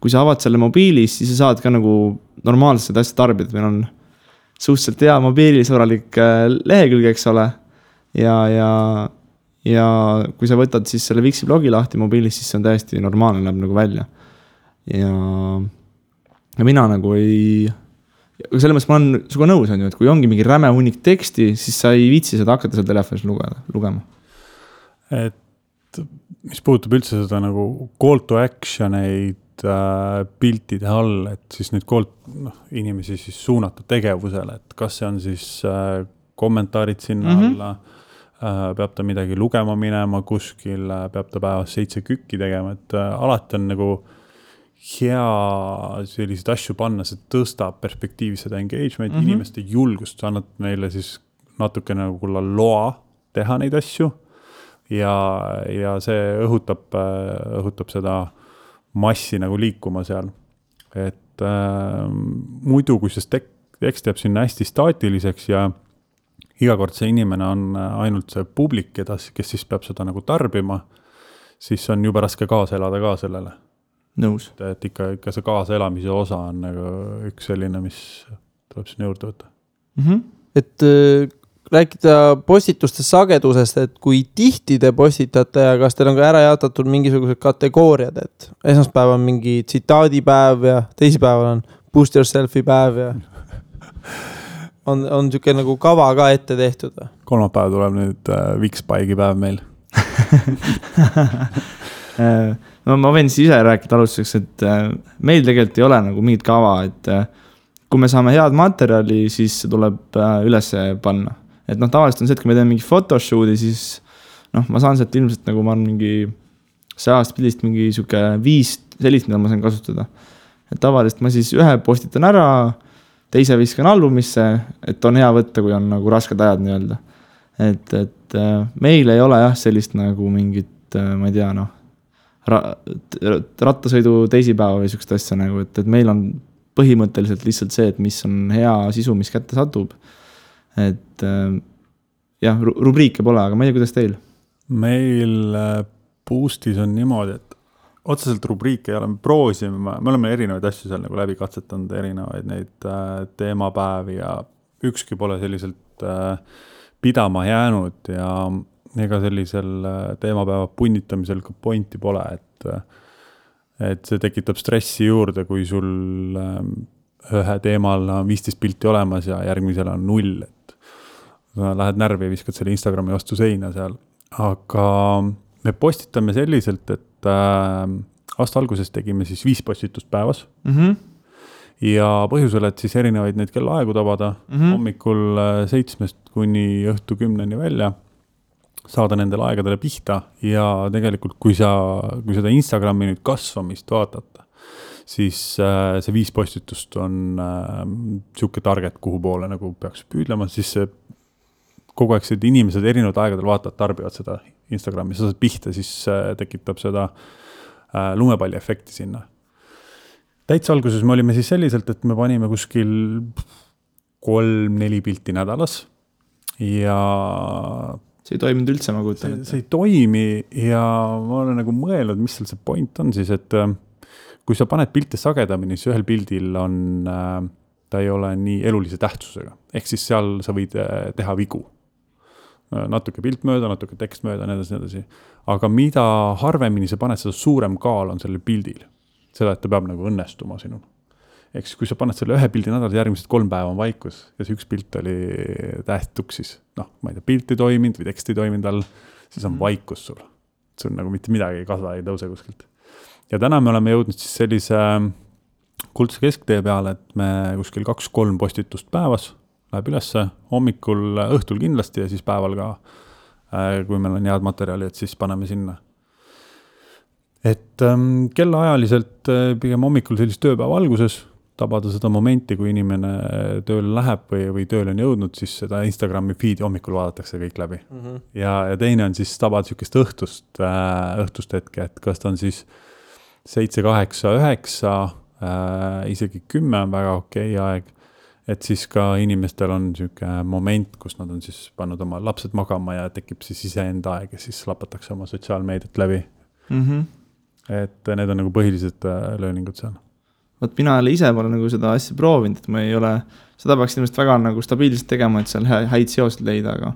kui sa avad selle mobiilis, siis sa saad ka nagu normaalselt seda asja tarbida. Meil on suhteliselt hea mobiilisõbralik lehekülg, eks ole. Ja kui sa võtad siis selle Vixi blogi lahti mobiilis, siis see on täiesti normaalne, läheb nagu välja. Ja mina nagu ei... Selle mõttes ma olen suga nõus, on ju, et kui ongi mingi räme hunnik teksti, siis sa ei viitsi seda hakata seal telefonis lugema. Et mis puudutab üldse seda nagu call to action'eid piltide all, et siis nüüd inimesi siis suunata tegevusele, et kas see on siis kommentaarid sinna alla, peab ta midagi lugema minema kuskil, peab ta päevas 7 kükki tegema, et alati on nagu hea selliseid asju panna, see tõstab perspektiivis seda engagement, inimeste julgust, sa annad meile siis natuke nagu loa teha neid asju ja see õhutab seda massi nagu liikuma seal. Et muidu, kui see tekst jääb sinna hästi staatiliseks ja iga kord see inimene on ainult see publik, kes siis peab seda nagu tarbima, siis on juba raske kaasa elada ka sellele. Nõus. Et ikka see kaasa elamise osa on nagu üks selline, mis tuleb sinna juurde võtta. Et rääkida postituste sagedusest, et kui tihti te postitate ja kas teil on ka ära jaotatud mingisugused kategooriad, et esmaspäev on mingi tsitaadipäev ja teisipäeval on boost yourself'i päev ja on siuke nagu kava ka ette tehtud? Kolmapäev tuleb nüüd Wixbike'i päev meil. No ma võin siis ise rääkida alustuseks, et meil tegelikult ei ole nagu mingit kava, et kui me saame head materjali, siis see tuleb üles panna. Et tavaliselt on see, et kui me teeme mingi photoshoot'i, siis ma saan sealt ilmselt nagu ma olen mingi 100 pildist mingi siuke 5 sellist, mida ma saan kasutada. Et tavaliselt ma siis ühe postitan ära, teise viskan albumisse, et on hea võtta, kui on nagu rasked ajad nii-öelda. Et meil ei ole jah sellist nagu mingit, ma ei tea, rattasõidu teisipäeva või siukest asja nagu, et meil on põhimõtteliselt lihtsalt see, et mis on hea sisu, mis kätte satub. Et jah, rubriike pole, aga ma ei tea, kuidas teil? Meil Boostis on niimoodi, et otseselt rubriike ei ole, me oleme erinevaid asju seal nagu läbi katsetanud, erinevaid neid teemapäevi ja ükski pole selliselt pidama jäänud ja ega sellisel teemapäeva punnitamisel ka pointi pole, et see tekitab stressi juurde, kui sul ühe teemal on 15 pilti olemas ja järgmisel on 0, et lähed närvi ja viskad selle Instagrami vastu seina seal. Aga me postitame selliselt, et aasta alguses tegime siis 5 postitust päevas ja põhjusel, et siis erinevaid neid kellaaegu tabada hommikul 7 kuni õhtu 10 välja, saada nendele aegadele pihta ja tegelikult kui seda Instagrami nüüd kasvamist vaatata, siis see 5 postitust on siuke target, kuhu poole nagu peaks püüdlema, siis see kogu aeg see inimesed erinevad aegadel vaatavad, tarbivad seda Instagrami, sa saad pihta, siis tekitab seda lumepalli efekti sinna. Täitsa alguses me olime siis selliselt, et me panime kuskil 3-4 pilti nädalas ja see ei toiminud üldse, ma kuutan. See ei toimi ja ma olen nagu mõelnud, mis seal see point on siis, et kui sa paned pilte sagedamini, siis ühel pildil on, ta ei ole nii elulise tähtsusega. Ehk siis seal sa võid teha vigu. Natuke pilt mööda, natuke tekst mööda, nii. Aga mida harvemini sa paned, seda suurem kaal on sellel pildil. Seda, et ta peab nagu õnnestuma sinul. Ehk siis, kui sa paned selle ühe pildi nädal, järgmised 3 päeva on vaikus ja see üks pilt oli tähtuksis. Ma ei tea, pilt ei toiminud või tekst ei toiminud all, siis on vaikus sul. Sul nagu mitte midagi ei kasva, ei tõuse kuskilt. Ja täna me oleme jõudnud siis sellise kuldse kesktee peale, et me kuskil 2-3 postitust päevas läheb ülesse, hommikul, õhtul kindlasti ja siis päeval ka, kui meil on head materjali, et siis paneme sinna. Et kellaajaliselt pigem hommikul sellist tööpäeva alguses tabada seda momenti, kui inimene tööle läheb või tööle on jõudnud, siis seda Instagrami feedi hommikul vaadatakse kõik läbi. Ja teine on siis tabada sükest õhtust hetke, et kas ta on siis 7, 8, 9, isegi 10 on väga okei aeg, et siis ka inimestel on siuke moment, kus nad on siis pannud oma lapsed magama ja tekib siis iseenda aeg ja siis lapatakse oma sotsiaalmeediat läbi. Et need on nagu põhilised lööningud seal. Võt mina ise pole nagu seda asja proovinud, et ma ei ole, seda peaks inimest väga nagu stabiilselt tegema, et seal häid seosid leida, aga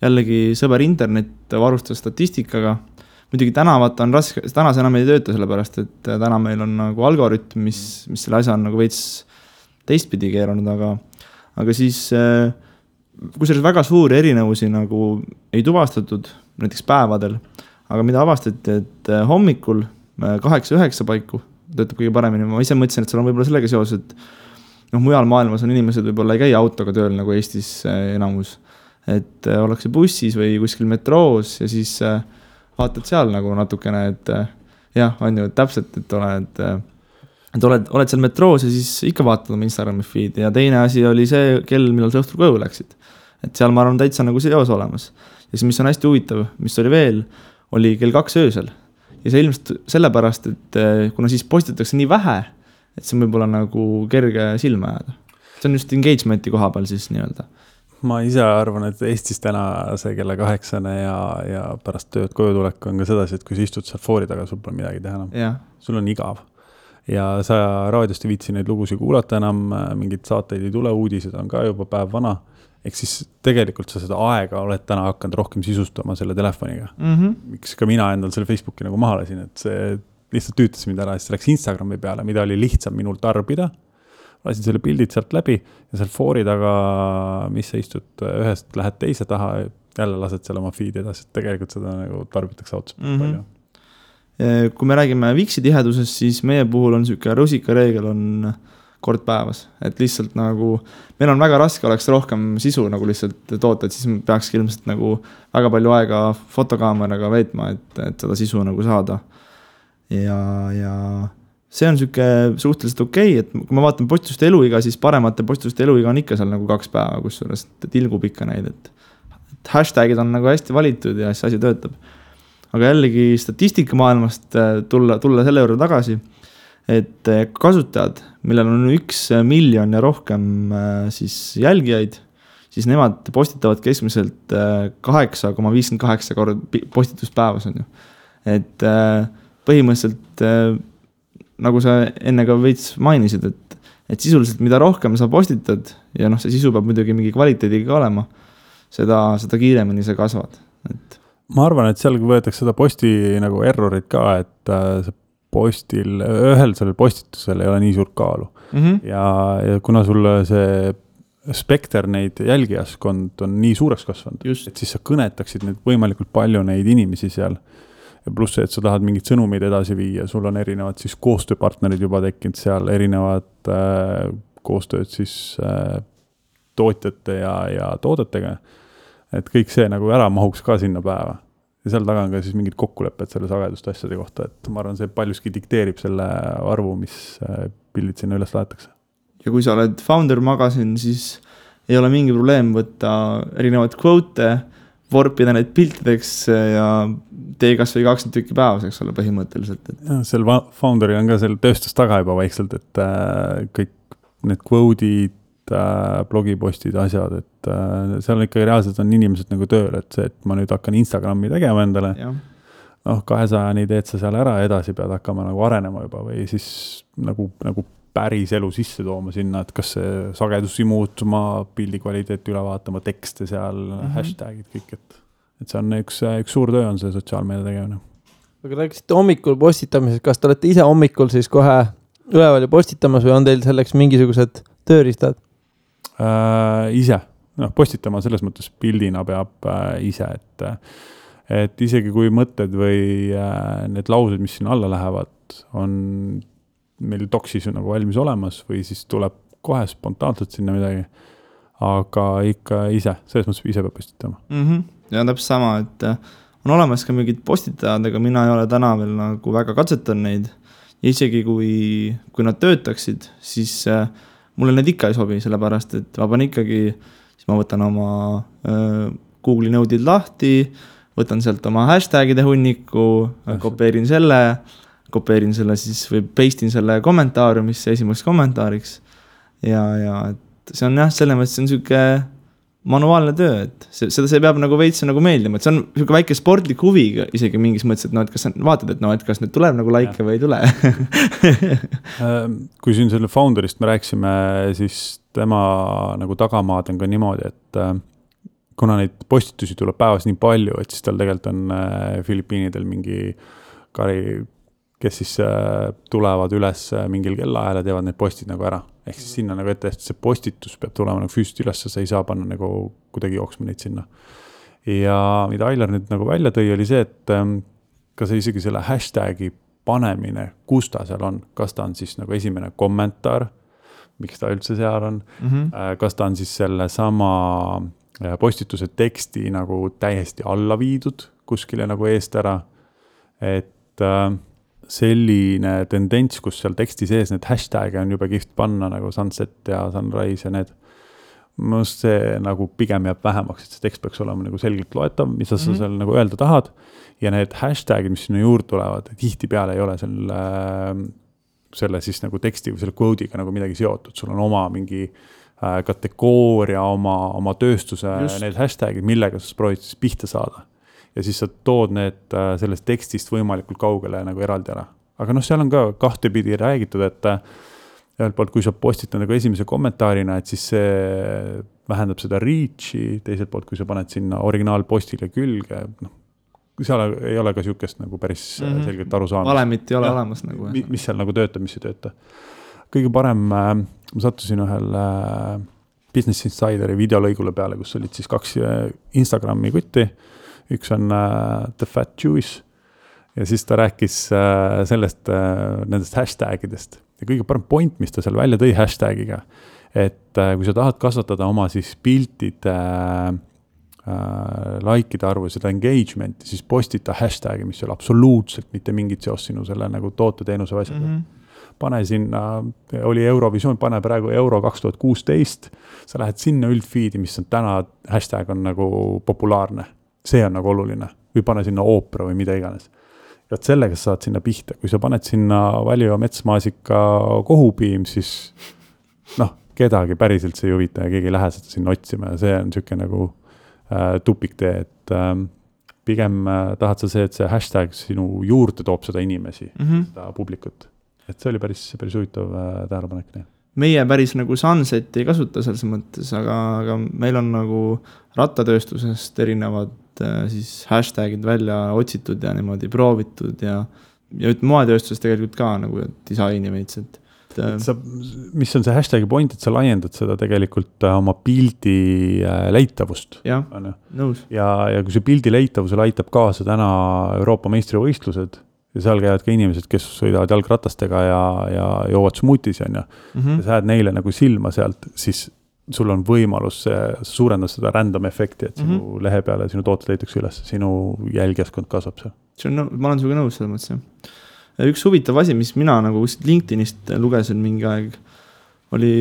jällegi sõber internet varustas statistikaga. Muidugi tänavat on raske, täna see enam ei tööta sellepärast, et täna meil on nagu algoritm, mis selle asja on nagu veits teistpidi keeranud, aga siis kui selles väga suuri erinevusi nagu ei tuvastatud näiteks päevadel, aga mida avastati, et hommikul 8-9 paiku töötab kõige paremini. Ma ise mõtlesin, et seal on võib-olla sellega seos, et mujal maailmas on inimesed võib-olla ei käi autoga tööl nagu Eestis enamus. Et ollakse bussis või kuskil metroos ja siis vaatad seal nagu natukene, et jah, on ju täpselt, et oled seal metroos ja siis ikka vaatad oma Instagrami feed ja teine asi oli see kell, millal sa õhtul koju läksid. Et seal ma arvan täitsa nagu seos olemas. Ja siis, mis on hästi huvitav, mis oli veel, oli kell 2 öösel. Ja see ilmselt sellepärast, et kuna siis postitatakse nii vähe, et see võib olla nagu kerge silma jääda. See on just engagementi koha peal siis nii-öelda. Ma ise arvan, et Eestis täna see kella 8 ja pärast tööd koju tulek on ka sedasi, et kui sa istud seal foori taga, sul pole midagi teha enam. Ja. Sul on igav. Ja sa raadiost ei viitsi neid lugusid kuulata enam, mingid saateid ei tule, uudised on ka juba päev vana. Ehk siis tegelikult sa seda aega oled täna hakanud rohkem sisustama selle telefoniga. Miks ka mina endal selle Facebooki nagu maha lasin, et see lihtsalt tüütas mind ära, siis läks Instagrami peale, mida oli lihtsam minul tarbida. Lasin selle pildid sealt läbi ja seal foori taga, mis sa istud ühest, lähed teise taha, jälle lased seal oma feed edasi, et tegelikult seda nagu tarbitakse otsa palju. Kui me räägime Vixi tihedusest, siis meie puhul on siuke rusika reegel on kord päevas, et lihtsalt nagu meil on väga raske oleks rohkem sisu nagu lihtsalt toota, et siis peaks ilmselt nagu väga palju aega fotokaameraga veetma, et seda sisu nagu saada. Ja see on siuke suhteliselt okei, et kui ma vaatan postituste eluiga, siis paremate postituste eluiga on ikka seal nagu 2 päeva, kusjuures tilgub ikka neid, et hashtagid on nagu hästi valitud ja see asi töötab. Aga jällegi statistika maailmast tulla selle juurde tagasi, et kasutajad, millel on 1 miljon ja rohkem siis jälgijaid, siis nemad postitavad keskmiselt 8,58 kord postitust päevas on ju. Et põhimõtteliselt, nagu sa enne ka veits mainisid, et sisuliselt mida rohkem sa postitad ja see sisu peab muidugi mingi kvaliteediga olema, seda kiiremini sa kasvad. Et ma arvan, et seal võetakse seda posti nagu errorit ka, et see postil, ühel sellel postitusel ei ole nii suurt kaalu. Ja kuna sul see spekter neid jälgijaskond on nii suureks kasvanud, et siis sa kõnetaksid neid võimalikult palju neid inimesi seal. Ja pluss see, et sa tahad mingid sõnumid edasi viia, sul on erinevad siis koostööpartnerid juba tekkinud seal, erinevad koostööd siis tootjate ja toodetega. Et kõik see nagu ära mahuks ka sinna päeva. Ja seal taga on ka siis mingid kokkulepped selle sagedust asjade kohta, et ma arvan, see paljuski dikteerib selle arvu, mis pildid sinna üles laetakse. Ja kui sa oled Founder Magazine, siis ei ole mingi probleem võtta erinevaid quote, vorpida neid piltideks ja tee kas või 20 tükki päevas, eks ole, põhimõtteliselt. Ja, seal Founderi on ka seal tööstus taga juba vaikselt, et kõik need quote'id, blogipostid, asjad, et seal ikkagi reaalselt on inimesed nagu tööl, et see, et ma nüüd hakkan Instagrami tegema endale, noh, 200-ni teed sa seal ära, edasi pead hakkama nagu arenema juba või siis nagu päris elu sisse tooma sinna, et kas see sagedusi muutuma, pildi kvaliteeti üle vaatama, tekste seal, hashtagid, kõik, et see on üks suur töö on see sotsiaalmeedia tegemine. Aga rääkisite hommikul postitamisest, kas te olete ise hommikul siis kohe üleval ja postitamas või on teil selleks mingisugused tööriistad? Ise, postitama selles mõttes pildina peab ise, et isegi kui mõtted või need laused, mis siin alla lähevad, on meil doksis nagu valmis olemas või siis tuleb kohe spontaanselt sinna midagi, aga ikka ise, selles mõttes ise peab postitama. Ja täpselt sama, et on olemas ka mingid postitajad, aga mina ei ole täna veel nagu väga katsetan neid ja isegi kui nad töötaksid, siis mulle need ikka ei sobi, sellepärast, et ma panen ikkagi, siis ma võtan oma Google'i nõudid lahti, võtan sealt oma hashtagide hunniku, kopeerin selle siis või pastin selle kommentaariumisse esimeseks kommentaariks ja et see on jah, selles mõttes see on selline manuaalne töö, et seda see peab nagu veits nagu meeldima, et see on selline väike sportlik huvi isegi mingis mõttes, et et kas sa vaatad, et kas nüüd tuleb nagu like või ei tule. Kui siin selle founderist me rääksime, siis tema nagu tagamaad on ka niimoodi, et kuna neid postitusi tuleb päevas nii palju, et siis tal tegelikult on Filipiinidel mingi kari, kes siis tulevad üles mingil kellaajal ja teevad need postid nagu ära. Ehk siis sinna nagu ette, et see postitus peab tulema nagu füüsiliselt üles, sa ei saa panna nagu kuidagi jooksma neid sinna. Ja mida Ailar nüüd nagu välja tõi, oli see, et kas isegi selle hashtagi panemine, kus ta seal on, kas ta on siis nagu esimene kommentaar, miks ta üldse seal on, kas ta on siis selle sama postituse teksti nagu täiesti alla viidud kuskile nagu eest ära, et selline tendents, kus seal teksti sees need hashtag'e on juba kihvt panna nagu sunset ja sunrise ja need, mõnust see nagu pigem jääb vähemaks, et see tekst peaks olema nagu selgelt loetav, mis sa seal nagu öelda tahad ja need hashtag'id, mis sinna juurde tulevad, tihti peale ei ole selle siis nagu teksti või selle quote'iga nagu midagi seotud, sul on oma mingi kategooria, oma tööstuse need hashtag'id, millega sa proovid siis pihta saada. Ja siis sa tood need sellest tekstist võimalikult kaugele nagu eraldi ära. Aga seal on ka kahtepidi räägitud, et ühelt poolt, kui sa postitad nagu esimese kommentaarina, et siis see vähendab seda reach'i, teiselt poolt, kui sa paned sinna originaalpostile külge, seal ei ole ka siukest nagu päris selgelt aru saamist. Valemit ei ole olemas nagu. Mis seal nagu töötab, mis ei tööta. Kõige parem, ma sattusin ühel Business Insideri videolõigule peale, kus olid siis 2 Instagrami kutti. Üks on The Fat Jewish ja siis ta rääkis sellest, nendest hashtagidest. Ja kõige parem point, mis ta seal välja tõi hashtagiga, et kui sa tahad kasvatada oma siis piltide likeide arvu ja seda engagementi, siis postita hashtagi, mis ei ole absoluutselt mitte mingit seost sinu selle nagu toote-teenuse asjaga. Pane sinna, oli Eurovisioon, pane praegu Euro 2016, sa lähed sinna üldfeedi, mis on täna, hashtag on nagu populaarne. See on nagu oluline. Või pane sinna oopera või mida iganes. Ja sellega sa saad sinna pihta. Kui sa paned sinna Valio metsmaasika kohupiim, siis kedagi päriselt see ei huvita ja keegi ei lähe seda sinna otsima. Ja see on selline nagu tupiktee, et pigem tahad sa see, et see hashtag sinu juurde toob seda inimesi, seda publikut. Et see oli päris huvitav tähelepanek. Meie päris nagu sunset ei kasuta selles mõttes, aga meil on nagu rattatööstusest erinevad siis hashtagid välja otsitud ja niimoodi proovitud ja moetööstusest tegelikult ka nagu disaini veits, mis on see hashtagi point, et sa laiendad seda tegelikult oma pildi leitavust. Jah, nõus. Ja kui see pildi leitavusel aitab kaasa täna Euroopa meistrivõistlused ja seal käivad ka inimesed, kes sõidavad jalgratastega ja joovad smuutis ja sa jääd neile nagu silma sealt, siis sul on võimalus suurendada seda random efekti, et sinu lehe peale sinu tooted leitakse üles, sinu jälgijaskond kasvab seal. Ma olen suga nõus selle mõttes. Üks huvitav asi, mis mina nagu LinkedInist lugesin mingi aeg, oli,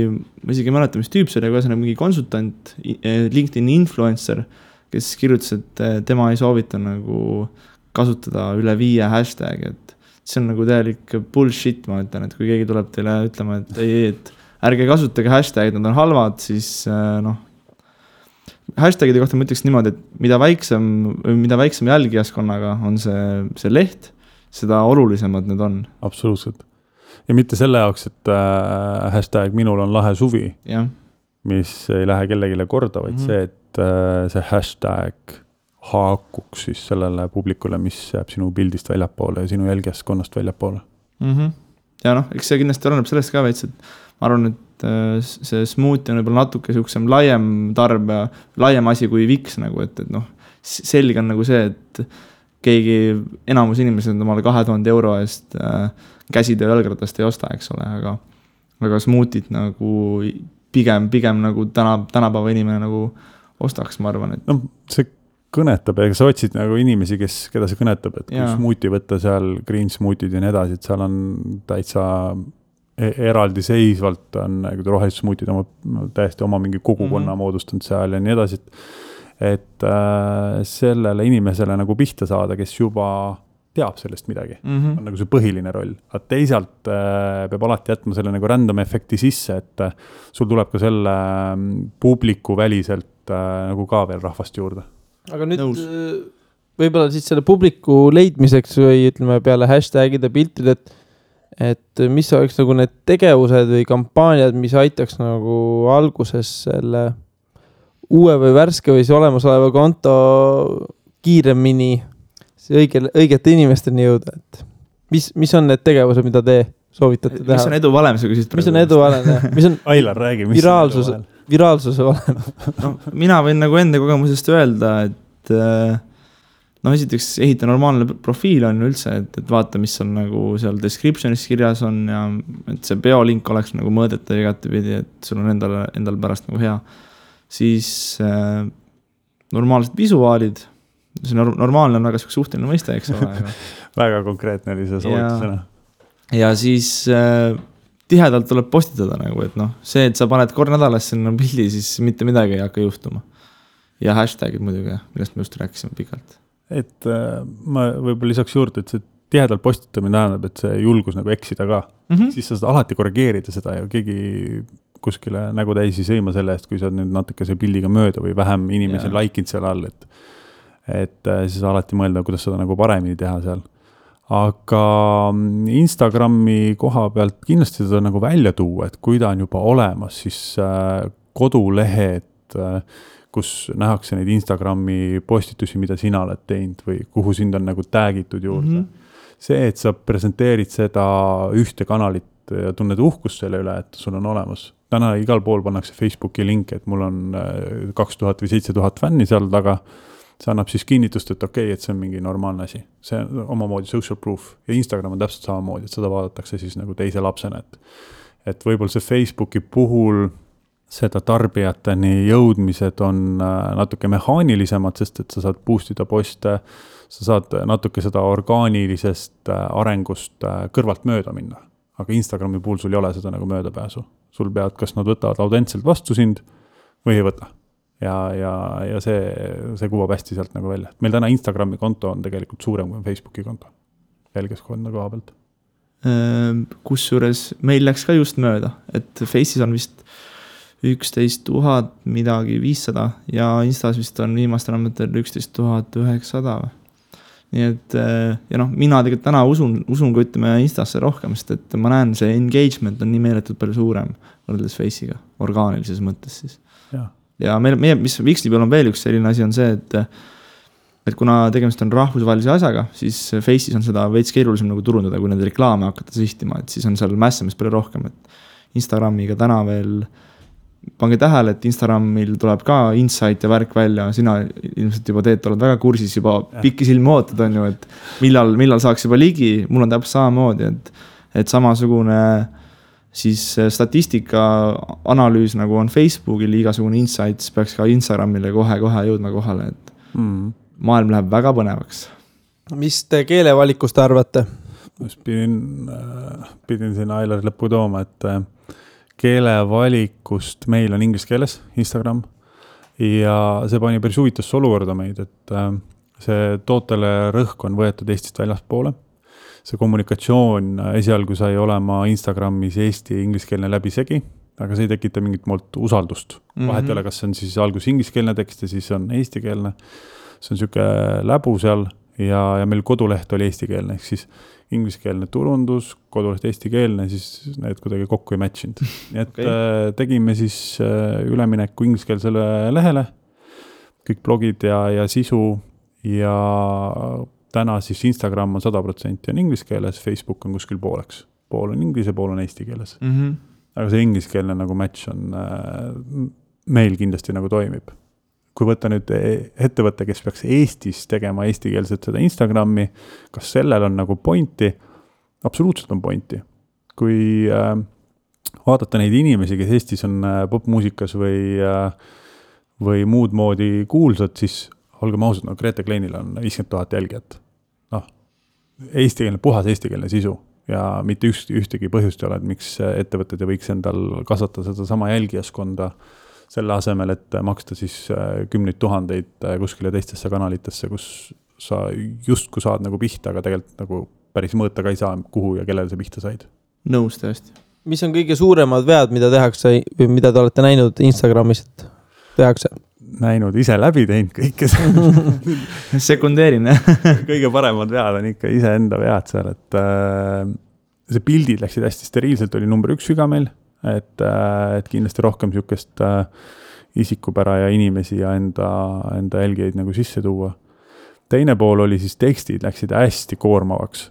ma isegi mäleta, mis tüüp see oli, aga mingi konsultant, LinkedIni influencer, kes kirjutas, et tema ei soovita nagu kasutada üle 5 hashtag, et see on nagu täielik bullshit, ma ütlen, et kui keegi tuleb teile ütlema, et ei, et ärge kasutage hashtagid, nad on halvad, siis hashtagide kohta ma ütleks niimoodi, et mida väiksem jälgijaskonnaga on see leht, seda olulisemad need on. Absoluutselt. Ja mitte selle jaoks, et hashtag minul on lahe suvi, mis ei lähe kellegile korda, vaid see, et see hashtag haakuks siis sellele publikule, mis jääb sinu pildist väljapoole ja sinu jälgijaskonnast väljapoole. Ja eks see kindlasti oleneb sellest ka veits, et ma arvan, et see smoothie on võib-olla natuke siuksem laiem asi kui Viks nagu, et selge on nagu see, et keegi enamus inimesed omale 2000 euro eest käsitöö jalgratast ei osta, eks ole, aga smoothit nagu pigem nagu tänapäeva inimene nagu ostaks, ma arvan, et see kõnetab ja sa otsid nagu inimesi, keda see kõnetab, et kui smoothie võtta seal, green smoothid ja nii edasi, et seal on täitsa eraldi seisvalt on rohelised smoothid täiesti oma mingi kogukonna moodustanud seal ja nii edasi, et sellele inimesele nagu pihta saada, kes juba teab sellest midagi, on nagu see põhiline roll. Aga teisalt peab alati jätma selle nagu random efekti sisse, et sul tuleb ka selle publiku väliselt nagu ka veel rahvast juurde. Aga nüüd võib-olla siis selle publiku leidmiseks või ütleme peale hashtagide piltid, et mis oleks nagu need tegevused või kampaaniad, mis aitaks nagu alguses selle uue või värske või see olemasoleva konto kiiremini õigete inimesteni jõuda, et mis on need tegevused, mida te soovitate teha? Mis on edu valem, sa küsid? Mis on edu valem, jah? Mis on Ailar, räägi, mis viraalsuse valem? Mina võin nagu enda kogemusest öelda, et esiteks ehita normaalne profiil on üldse, et vaata, mis on nagu seal descriptionis kirjas on ja et see biolink oleks nagu mõõdetav igatepidi, et sul on endal pärast nagu hea. Siis normaalsed visuaalid, see normaalne on väga suhteline mõiste, eks ole. Väga konkreetne oli see soovitusena. Ja siis tihedalt tuleb postitada nagu, et see, et sa paned kord nädalas sinna pildi, siis mitte midagi ei hakka juhtuma. Ja hashtagid muidugi, millest me just rääkisime pikalt. Et ma võib-olla lisaks juurde, et see tihedalt postitamine tähendab, et see julgus nagu eksida ka. Siis sa saad alati korrigeerida seda ja keegi kuskile nägu täis ei sõima selle eest, kui sa nüüd natuke see pildiga mööda või vähem inimesi laikinud seal all, et siis alati mõelda, kuidas seda nagu paremini teha seal. Aga Instagrami koha pealt kindlasti seda nagu välja tuua, et kui ta on juba olemas, siis kodulehed, kus nähakse neid Instagrami postitusi, mida sina oled teinud või kuhu sind on nagu täägitud juurde. See, et sa presenteerid seda ühte kanalit ja tunned uhkust selle üle, et sul on olemas. Täna igal pool pannakse Facebooki link, et mul on 2000 või 7000 fänni seal taga. See annab siis kinnitust, et okei, et see on mingi normaalne asi. See on omamoodi social proof ja Instagram on täpselt samamoodi, et seda vaadatakse siis nagu teise lapsena. Et võib-olla see Facebooki puhul seda tarbijateni jõudmised on natuke mehaanilisemad, sest et sa saad boostida poste, sa saad natuke seda orgaanilisest arengust kõrvalt mööda minna. Aga Instagrami puhul sul ei ole seda nagu möödapääsu. Sul pead, kas nad võtavad autentselt vastu sind või ei võta. Ja see kuvab hästi sealt nagu välja. Meil täna Instagrami konto on tegelikult suurem kui Facebooki konto. Jälgijaskonna koha pealt. Kusjuures meil läks ka just mööda, et Face'is on vist 11 000 midagi 500 ja Instas vist on viimastel andmetel 11 900. Nii et mina tegelikult täna usun kui ütleme Instasse rohkem, sest et ma näen, see engagement on nii meeletult palju suurem võrreldes Face'iga, orgaanilises mõttes siis. Ja mis Vixli peal on veel üks selline asi on see, et kuna tegemist on rahvusvahelise asjaga, siis Face'is on seda veits keerulisem nagu turundada, kui need reklaame hakata sihtima, et siis on seal mässamist palju rohkem, et Instagramiga täna veel pange tähele, et Instagramil tuleb ka insight ja värk välja, sina ilmselt juba oled väga kursis, juba pikki silmi ootad on ju, et millal saaks juba ligi, mul on täpselt samamoodi, et samasugune siis statistika analüüs nagu on Facebookil, igasugune insights peaks ka Instagramile kohe jõudma kohale, et maailm läheb väga põnevaks. Mis te keelevalikust arvate? Pidin siin Ailar lõppu tooma, et keelevalikust meil on inglise keeles Instagram ja see pani päris huvitasse olukorda meid, et see tootele rõhk on võetud Eestist väljaspoole. See kommunikatsioon esialgu sai olema Instagramis eesti ingliskeelne läbisegi aga see ei tekita mingit molt usaldust. Vahet ei ole, kas see on siis algus ingliskeelne tekst ja siis on eestikeelne. See on siuke läbu seal ja meil koduleht oli eestikeelne, ehk siis ingliskeelne turundus, koduleht eestikeelne, siis need kuidagi kokku ei matchinud. Nii et tegime siis ülemineku ingliskeelsele lehele, kõik blogid ja sisu ja täna siis Instagram on 100% on ingliskeeles, Facebook on kuskil pooleks. Pool on inglise, pool on eesti keeles. Aga see ingliskeelne nagu match on meil kindlasti nagu toimib. Kui võtta nüüd ettevõtte, kes peaks Eestis tegema eestikeelset seda Instagrami, kas sellel on nagu pointi? Absoluutselt on pointi. Kui vaadata neid inimesi, kes Eestis on popmuusikas või muud moodi kuulsad, siis olgem ausad, no Grete Kleinil on 50 000 jälgijat. Puhas eestikeelne sisu. Ja mitte ühtegi põhjust ei ole, et miks ettevõtted võiks endal kasvatada seda sama jälgijaskonda selle asemel, et maksta siis 10 000 kuskile teistesse kanalitesse, kus sa justku saad nagu pihta, aga tegelikult nagu päris mõõta ka ei saa, kuhu ja kellele sa pihta said. Nõus tõesti. Mis on kõige suuremad vead, mida tehakse või mida te olete näinud Instagramis, et tehakse? Näinud, ise läbi teinud kõike sekundeerin, kõige paremad vead on ikka ise enda vead seal, et see pildid läksid hästi steriilselt, oli number 1 viga meil, et kindlasti rohkem siukest isikupära ja inimesi ja enda jälgijaid nagu sisse tuua. Teine pool oli siis tekstid, läksid hästi koormavaks,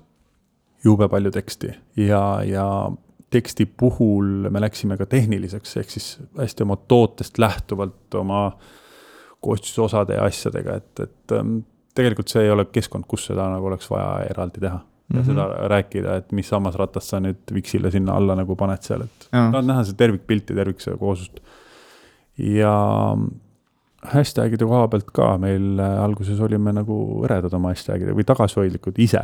jube palju teksti ja teksti puhul me läksime ka tehniliseks, ehk siis hästi oma tootest lähtuvalt oma koostisosade ja asjadega, et tegelikult see ei ole keskkond, kus seda nagu oleks vaja eraldi teha. Ja seda rääkida, et mis sammasratast sa nüüd Vixile sinna alla nagu paned seal, et tahad näha see tervikpilt ja tervikse koosust. Ja hashtagide koha pealt ka meil alguses olime nagu õredad oma hashtagide või tagasihoidlikud ise.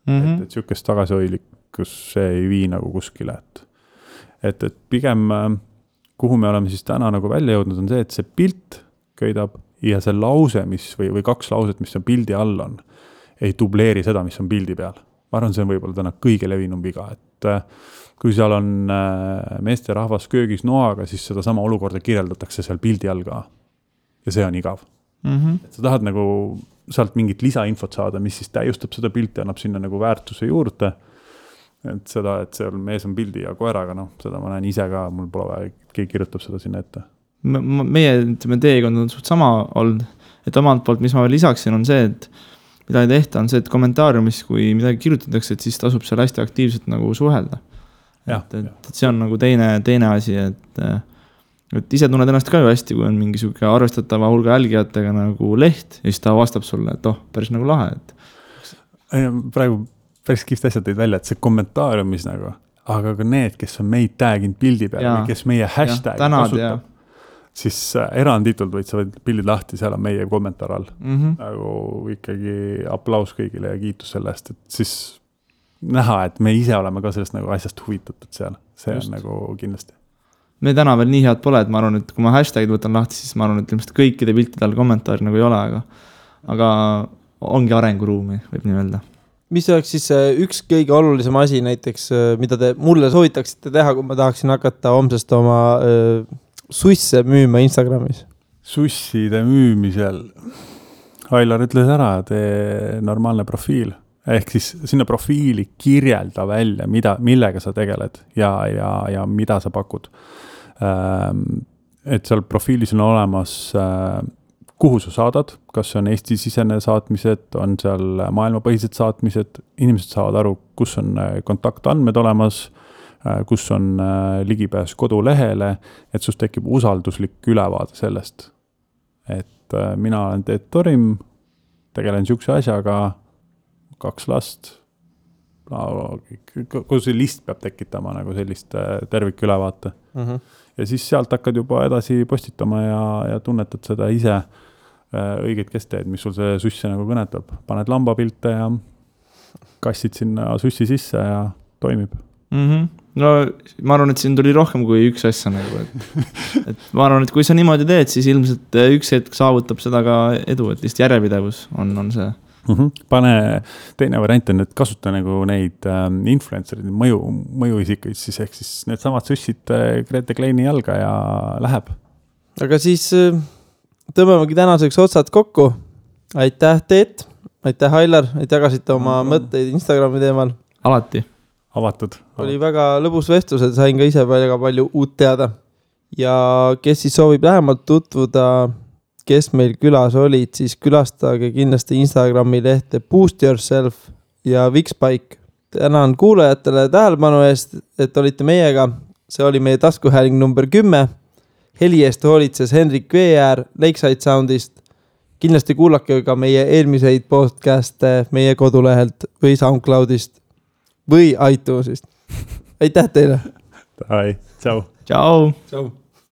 Et siukest tagasihoidlikkus see ei vii nagu kuskile. Et pigem, kuhu me oleme siis täna nagu välja jõudnud, on see, et see pilt köidab ja see lause, või 2 lauset, mis on pildi all on, ei dubleeri seda, mis on pildi peal. Ma arvan, see on võib-olla täna kõige levinum viga, et kui seal on meeste rahvas köögis noaga, siis seda sama olukorda kirjeldatakse seal pildi all ka. Ja see on igav. Et sa tahad nagu sealt mingit lisainfot saada, mis siis täiustab seda pilti ja annab sinna nagu väärtuse juurde. Et seda, et seal mees on pildi ja koeraga, seda ma näen ise ka, mul pole vaja, keegi kirjutab seda sinna ette. Meie teekond on suht sama olnud, et omalt poolt, mis ma veel lisaksin, on see, et mida ei tehta, on see, et kommentaariumis, kui midagi kirjutatakse, et siis tasub seal hästi aktiivselt nagu suhelda. Et see on nagu teine asi, et ise tunned ennast ka ju hästi, kui on mingi suke arvestatava hulga jälgijatega nagu leht ja siis ta vastab sulle, et päris nagu lahe. Praegu päris kihvt asjad teid välja, et see kommentaariumis nagu, aga ka need, kes on meid tag'inud pildi peal või kes meie hashtag kasutab, siis eranditult võid sa pildid lahti, seal on meie kommentaar all. Nagu ikkagi aplaus kõigile ja kiitus selle eest, et siis näha, et me ise oleme ka sellest nagu asjast huvitatud seal. See on nagu kindlasti. Me täna veel nii head pole, et ma arvan, et kui ma hashtagid võtan lahti, siis ma arvan, et ilmselt kõikide piltide all kommentaari nagu ei ole, aga ongi arenguruumi, võib nii öelda. Mis oleks siis üks kõige olulisem asi näiteks, mida te mulle soovitaksite teha, kui ma tahaksin hakata homsest oma susse müüma Instagramis? Susside müümisel. Ailar ütles ära, tee normaalne profiil. Ehk siis sinna profiili kirjelda välja, millega sa tegeled ja mida sa pakud. Et seal profiilis on olemas kuhu sa saadad, kas on Eesti-sisene saatmised, on seal maailmapõhised saatmised, inimesed saavad aru, kus on kontaktandmed olemas, kus on ligipääs kodulehele, et sust tekib usalduslik ülevaade sellest. Et mina olen Teet Torim, tegelen siukse asjaga, 2 last, kogu see list peab tekitama nagu sellist tervikülevaate. Ja siis sealt hakkad juba edasi postitama ja tunnetad seda ise õigeid kesteid, mis sul see susse nagu kõnetab. Paned lambapilte ja kassid sinna sussi sisse ja toimib. No ma arvan, et siin tuli rohkem kui üks asja nagu, et ma arvan, et kui sa niimoodi teed, siis ilmselt üks hetk saavutab seda ka edu, et lihtsalt järjepidevus on see. Pane, teine variant on, et kasuta nagu neid influencer'id, mõjuisikuid siis, ehk siis need samad süssid Grete Kleini jalga ja läheb. Aga siis tõmbamegi tänaseks otsad kokku. Aitäh Teet, aitäh Ailar, et jagasite oma mõtteid Instagrami teemal. Alati. Avatud. Oli väga lõbus vestlus, et sain ka ise väga palju uut teada. Ja kes siis soovib lähemalt tutvuda, kes meil külas olid, siis külastage kindlasti Instagrami lehte Boost Yourself ja Vikspike. Tänan kuulajatele tähelepanu eest, et olite meiega. See oli meie taskuhääling number 10. Heli eest hoolitses Henrik Veeäär Lakeside Soundist. Kindlasti kuulake ka meie eelmiseid podcast'e meie kodulehelt või SoundCloudist või iTunesist. Aitäh teile! Tchau. Ciao! Ciao!